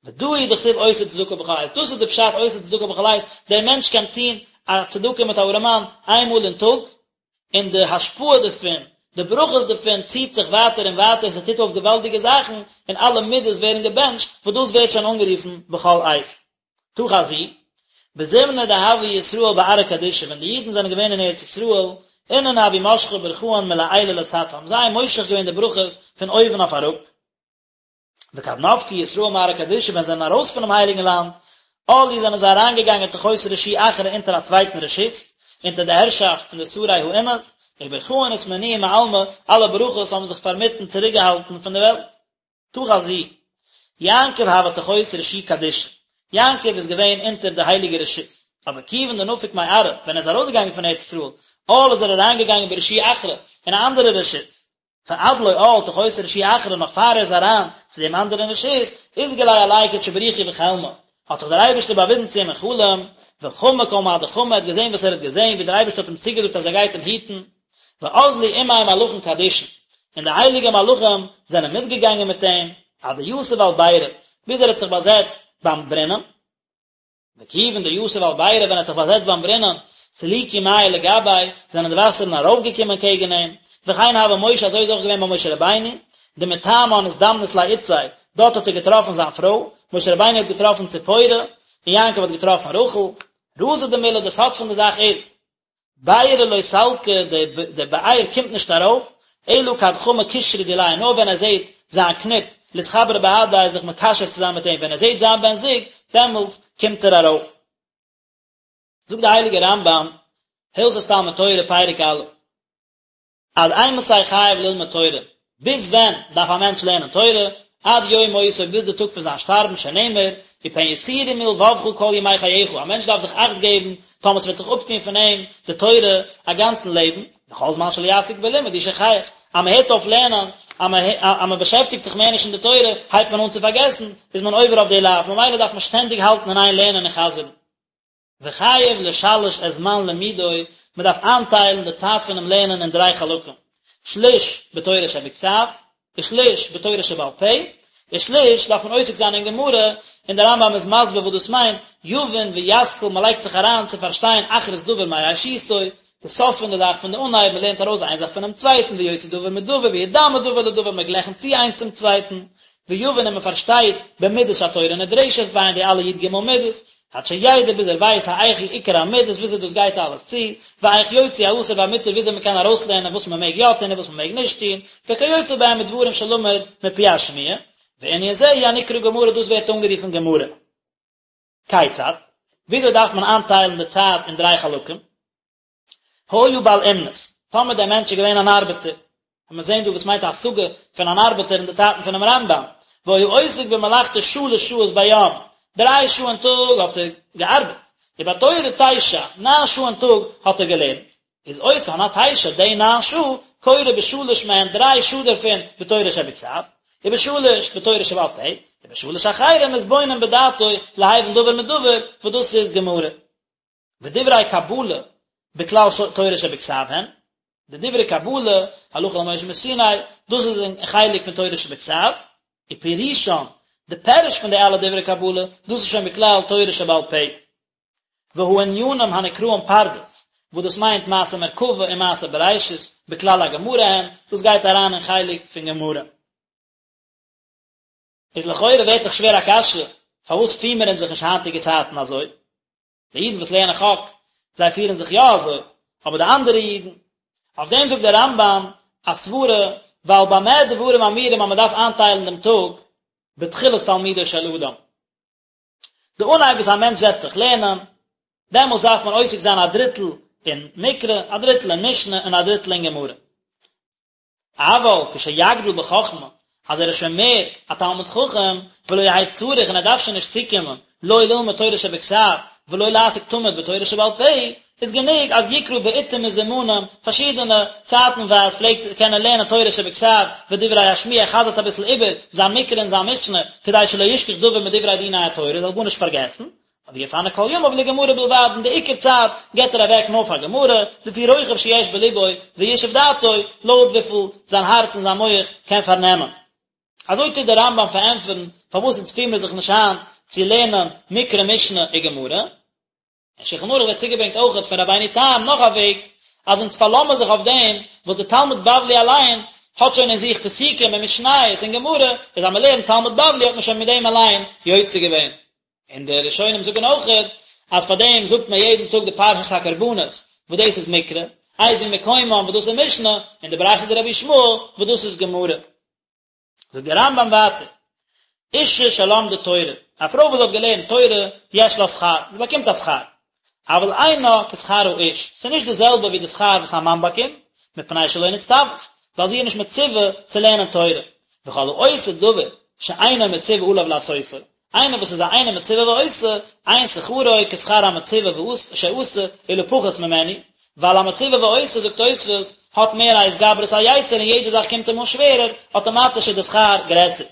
ודא הוא דכתיב עושה צדקה בכל עת, דאס איז די פשט עושה צדקה בכל עת, דער מענטש קען טון א צדקה מיט א ארעמאן איין מאל אין טאג, און די השפעה דערפון, די ברכות דערפון ציט זיך ווייטער און ווייטער, ס'טוט אויף געוואלדיגע זאכן, און אלע מידות ווערן געבענטשט, וואס דאס ווערט שוין אנגערופן בכל עת. תא חזי, בזמנא דהוו ישראל בארעא קדישא, ווען די אידן זענען געווען אין ארץ ישראל, אינון הוו משכי ברכאן מלעילא לתתא, האבן זיי מושך געווען די ברכות פון אויבן אויף אראפ, וכד נפקו ישראל מארעא קדישא ווען זיי זענען ארויס פונעם הייליגן לאנד, עאלו זענען זיי אריינגעגאנגען תחות רשו אחרא אונטער א צווייטן רשות, אונטער די הערשאפט פון די שרי האומות, וברכאן אתמנעו מעלמא, אלע ברכות האבן זיך פארמיטן צוריקגעהאלטן פון די וועלט. תא חזי, יעקב הוה תחות רשו קדישא, יעקב איז געווען אונטער די הייליגע רשות, אבער כיוון דנפק מארעא, ווען ער איז ארויסגעגאנגען פון ארץ ישראל, עאל איז ער אריינגעגאנגען ברשו אחרא, אין א אנדערע רשות, פאר עד לא עאל תחות רשו אחרא נאך פאר ער איז אריין צו דעם אנדערן רשות, אתגלי עליה קודשא בריך הוא בחלמא, האט זיך דער אייבערשטער באוויזן צו אים אין חלום, וחמא כל מה דחמא, ער האט געזען וואס ער האט געזען, ווי דער אייבערשטער האט אים צוגעזאגט אז ער גייט אים היטן, ואזלו עמיה מלאכין קדישין, און די הייליגע מלאכים זענען מיטגעגאנגען מיט אים, עד דיתיב על בירא, ביז ער האט זיך באזעצט ביים ברונעם. וכיוון דיתיב על בירא ווען ער האט זיך באזעצט ביים ברונעם, סליקו מיא לגביה, זענען די וואסערן ארויפגעקומען קעגן אים, וכן הוה משה אזוי איז אויך געווען ביי משה רבינו, דמתמן אזדמנת ליה אתתיה, דארט האט ער געטראפן זיין פרוי, משה רבינו האט געטראפן ציפורה, און יעקב האט געטראפן רחל, רזא דמלה די סוד פון די זאך איז, בירא לא סלקא, די באר קומט נישט ארויף, אלא כד חמא קשרא דיליה, נאר ווען ער זעט זיין קניפ, לאתחברא בהדיה זיך מקשר צו זיין מיט אים, ווען ער זעט זיין בן זוג, דעמאלטס קומט ער ארויף. זאגט דער הייליגער רמב"ם, הלכות תלמוד תורה פרק א', עד אימתי חייב ללמוד תורה, ביז ווען דארף א מענטש לערנען תורה, עד יום מותו ביז די טאג פון זיין שטארבן שנאמר, ופן יסורו מלבבך כל ימי חייך, א מענטש דארף זיך אכט געבן טאמער ס'וועט זיך אפטון פון אים די תורה א גאנצן לעבן, וכל זמן שלא יעסוק בלימוד הוא שוכח, אז מען הערט אויף לערנען, אז מען באשעפטיגט זיך מער נישט אין די תורה, הייבט מען אן צו פארגעסן, איז מען עובר אויף די לאו, ממילא דארף מען שטענדיג האלטן אין איין לערנען און חזר'ן. וחייב לשלש את זמן לימודו, מען דארף איינטיילן די צייט פונעם לערנען אין דריי חלקים, שליש בתורה שבכתב, ושליש בתורה שבעל פה, ושליש דארף מען עוסק זיין אין גמרא, און דער רמב"ם איז מסביר וואס דאס מיינט, יבין וישכיל, מען לייגט זיך אריין צו פארשטיין אחרית דבר מראשיתו, די סוף פון די זאך פון די אנהייב, מען לערנט ארויס איין זאך פונעם צווייטן, ויוציא דבר מדבר, וידמה דבר לדבר, מען גלייכנט צו איינס צום צווייטן, ויבין און מען פארשטייט במידות שהתורה נדרשת בהן די אלע י"ג מידות, עד שידע ביז ער ווייס האיך הוא עיקר המידות וויאזוי דאס גייט אלעס צו, ואיך יוציא האסור והמותר וויאזוי מען קען ארויסלערנען וואס מען מעג יא טון און וואס מען מעג נישט טון, וכיוצא בהם מדברים שלמד מפי השמועה, וענין זה הוא הנקרא גמרא דאס ווערט אנגערופן גמרא. כיצד? וויאזוי דארף מען איינטיילן די צייט אין דריי חלקים? היה בעל אומנות, טאמער דער מענטש איז געווען אן ארבעטער, און מיר זעהן דא וואס מיינט א השגה פון אן ארבעטער אין די צייטן פונעם רמב"ם, והיה עוסק במלאכתו שלש שעות ביום, דריי שעה אין טאג האט ער געארבעט, ובתורה תשע, ניין שעה אין טאג האט ער געלערנט, איז אותן התשע, די ניין שעה, קורא בשלש מהן, דריי שעה דערפון בתורה שבכתב, ובשלש בתורה שבעל פה, ובשלש אחרים מתבונן בדעתו להבין דבר מדבר, וואס דאס איז גמרא. ודברי קבלה בכלל תורה שבכתב הן. די דברי קבלה, הלכה למשה מסיני, דאס איז אין חלק פון תורה שבכתב, ופירושן, די פירוש פון די אלע דברי קבלה, דאס איז שוין בכלל תורה שבעל פה. והענינים הנקראים פרדס, וואס דאס מיינט מעשה מרכבה און מעשה בראשית, בכלל הגמרא הם, דאס גייט אריין אין חלק פון גמרא. איז לכאורה ווערט דאך שווער א קשיא, פארוואס פירן מיר אונז זיך נישט היינטיגע צייטן אזוי? די אידן וואס לערנען חק, זיי פירן זיך יא אזוי, אבער די אנדערע אידן? אויף דעם זאגט דער רמב"ם א סברה, ווייל במה דברים אמורים אז מען דארף איינטיילן דעם טאג בתחילת תלמודו של אדם. די אנהייב וואס א מענטש זעצט זיך לערנען, דעמאלס דארף מען עוסק זיין א דריטל אין מקרא, א דריטל אין משנה און א דריטל אין גמרא. אבל כשיגדיל בחכמה, אז ער איז שוין מער א תלמיד חכם, ולא יהא צריך און ער דארף שוין נישט צוקומען, לא ללמוד תורה שבכתב, ולא לעסוק תמיד בתורה שבעל פה, איז גענוג אז יקרא בעתים מזומנים, פארשידענע צייטנווייז פלעגט ער קענען לערנען תורה שבכתב ודברי השמועה, ער חזר'ט אביסל איבער זיין מקרא און זיין משנה, כדי שלא ישכח דבר מדברי דיני התורה, ער זאל גארנישט פארגעסן, ויפנה כל ימיו לגמרא בלבד, און די עיקר צייט געבט ער אוועק נאר פאר גמרא, לפי רוחב שיש בלבו וישוב דעתו, לויט וויפיל זיין הארץ און זיין מח קען פארנעמען. אזוי טוט דער רמב"ם פארענטפערן פארוואס אונז פירן מיר זיך נישט היינט צו לערנען מקרא משנה און גמרא. אין שולחן ערוך ווערט צוגעברענגט אויכעט פון רבינו תם נאך א וועג, אז אונז פארלאזן מיר זיך אויף דעם וואס דער תלמוד בבלי אליין האט שוין אין זיך פסוקים און משניות און גמרא, איז אז מען לערנט תלמוד בבלי האט מען שוין מיט דעם אליין יוצא געווען. און די ראשונים זאגן אויכעט אז פאר דעם זאגט מען יעדן טאג די פרשת הקרבנות וואס דאס איז מקרא, איזהו מקומן וואס דאס איז משנה, און די ברייתא דרבי ישמעאל וואס דאס איז גמרא. זאגט דער רמב"ם ווייטער, אשה שלמדה תורה, א פרוי וואס האט געלערנט תורה, יש לה שכר, זי באקומט א שכר, אבל אינה כשכר האיש, ס'איז נישט די זעלבע ווי די שכר וואס א מאן באקומט, מפני שלא נצטוית, ווייל זי איז נישט מצווה צו לערנען תורה, וכל העושה דבר שאינו מצווה עליו לעשותו, איינער וואס איז א אינו מצווה ועושה, אין שכרו כשכר המצווה שעשה, אלא פחות ממנו, ווייל א מצווה ועושה, זאגט תוספות, האט מער א התגברות היצר און יעדע זאך קומט אים אן שווערער, אטאמאטיש איז די שכר גרעסער.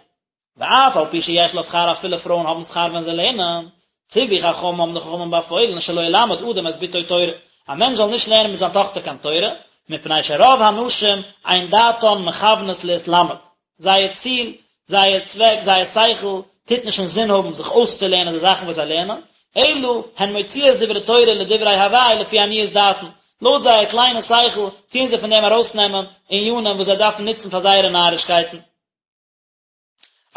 ואף על פי שיש לה שכר אפילו פרויען האבן שכר ווען זיי לערנען, ציוו חכמים האבן די חכמים באפוילן שלא ילמד אדם את בתו תורה, א מענטש זאל נישט לערנען מיט זיין טאכטער קיין תורה, מפני שרוב הנשים אין דעתן מכוונת להתלמד, זייער ציל, זייער צוועק, זייער שכל, טוט נישט אינזין האבן זיך אויסצולערנען די זאכן וואס זיי לערנען, אלא הן מוציאות דברי תורה לדברי הבאי לפי עניות דעתן, לויט זייער קליינע שכל טוען זיי פון דעם ארויסנעמען ענינים וואס זיי דארפן נוצן פאר זייערע נארישקייטן.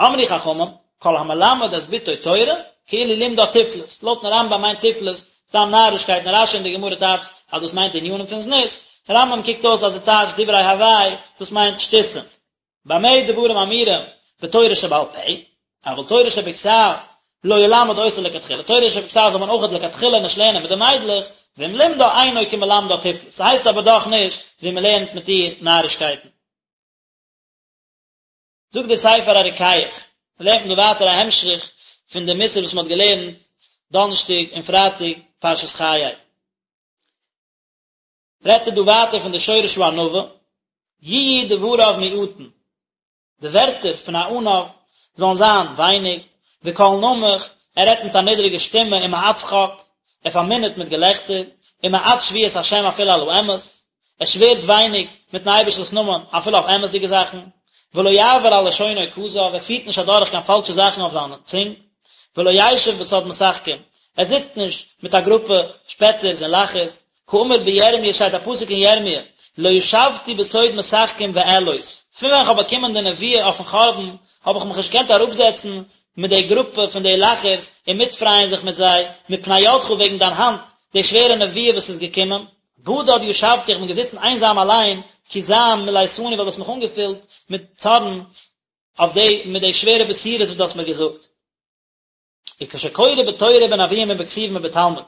אמרו חכמים, כל המלמד את בתו תורה, כאילו לימדה תיפלות, לויטן רמב"ם מיינט תיפלות סתם נארישקייטן, רש"י אין די גמרא טייטשט אז דאס מיינט ענינים פון זנות, רמב"ם קוקט אויס אז ער טייטשט דברי הבאי, דאס מיינט שטותים. במה דברים אמורים בתורה שבעל פה, אבל תורה שבכתב לא ילמד אותה לכתחילה, תורה שבכתב זאל מען אויכעט לכתחילה נישט לערנען מיט די מיידלעך, ואם לימדה אינו כמלמדה תיפלות, ס'הייסט אבער דאך נישט ווי מ'לערנט מיט איר נארישקייטן. זאגט דער ספר הרוקח, לערנט מען דא ווייטער א המשך פון די מוסר וואס מען האט געלערנט דאנערשטאג און פרייטאג פרשת חיי. רעדט ער דא ווייטער פון די שורש הענווה, יהיו דבריו מועטין, די ווערטער פון א עניו זאלן זיין ווייניג, וקול נמוך, ער רעדט מיט א נידריגע שטימע ומעט שחוק, ער פארמינערט מיט געלעכטער, ומעט שבועת השם אפילו על האמת, ער שווערט ווייניג מיטן אייבערשטנ'ס נאמען אפילו אויף אמת'דיגע זאכן, ולא יעבר על לשונו כזב, ער פירט נישט אדורך קיין פאלשע זאכן אויף זיין צונג, ולא ישב בסוד משחקים, ער זיצט נישט מיט א גרופע שפעטערס און לאכערס, כאמור בירמיה שטייט א פסוק אין ירמיה, לא ישבתי בסוד משחקים ואעלוז, פון ווען כ'האב באקומען די נבואה אויפן חורבן, האב איך מיך נישט געקענט אראפזעצן מיט די גרופע פון די לאכערס און מיטפרייען זיך מיט זיי, מפני ידך וועגן דיין האנט, די שווערע נבואה וואס איז געקומען. בדד ישבתי, איך בין געזיצן איינזאם אליין, כי זעם מלאתני ווייל דו האסט מיך אנגעפילט מיט צארן אויף די מיט די שווערע בשורות וואס דו האסט מיר געזאגט. וכשקורא בתורה בנביאים ובכתובים ובתלמוד,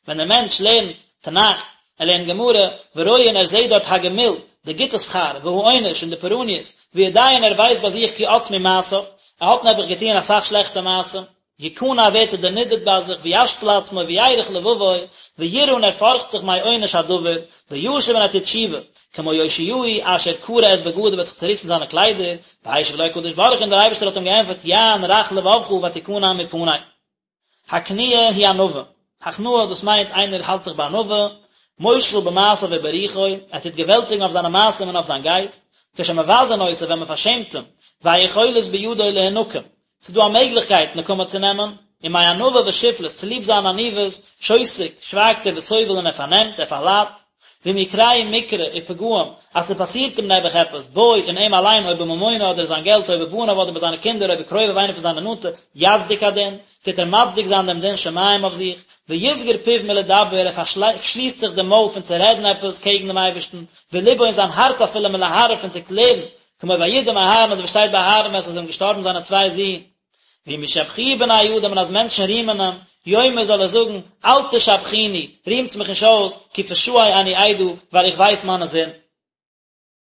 ווען דער מענטש לערנט תנך, ער לערנט גמרא, ורואה און ער זעט דארט הגמול, די גוטע שכר, והעונש און די פורעניות, ויודע און ער ווייסט ביי זיך כי עצמו מעשיו, ער האט נעבעך געטוען אסאך שלעכטע מעשים, יכנע ווערט ער דערנידערט ביי זיך וישפיל עצמו וירך לבבו, וירא און ער פארכט זיך מעונש הדבר, וישוב און ער טוט תשובה, כמו יאשיהו אשר קרע את בגדיו האט זיך צעריסן זיינע קליידער, והשיב לו הקדוש ברוך הוא און דער אייבערשטער האט אים געענטפערט יען רך לבבך ותכנע מפני. הכניעה היא ענווה, הכנעה דאס מיינט איינער האלט זיך בענווה, מושל במעשיו וברוחו, ער טוט געוועלטיגן אויף זיינע מעשים און אויף זיין גייסט, כשמבזין אותו ווען מען פארשעמט אים, והיכולת בידו להנקם, ס'איז דא א מעגליכקייט נקמה צו נעמען, ומענווה ושפלות, צוליב זיין עניוות, שותק, שווייגט ער וסובל און ער פארנעמט, ער פארליידט, ואם יקרהו מקרה ופגעים, אז ס'פאסירט אים נעבעך עפעס, בו, אין אים אליין, או בממונו אדער זיין געלט, או בבניו אדער ביי זיינע קינדער, או בקרוביו איינער פון זיינע נאנטע, יצדיק הדין, טוט ער מצדיק זיין דעם דין שמים אויף זיך, ויסגור פיו מלדבר, ער פארשליסט זיך דעם מויל פון צו רעדן עפעס קעגן דעם אייבערשטן, ולבו און זיין הארץ אפילו מלהרהר פון צו קלערן, כמו וידום אהרן אזוי ווי שטייט ביי אהרן ווען עס איז אים געשטארבן זיינע צוויי זין. ואם ישבחוהו בני אדם און אז מענטשן רימען אים, יאמר זאל ער זאגן, אל תשבחוני, רימטס מיך נישט אויס, כי פשעי אני אדע, ווייל איך ווייס מיינע זינד.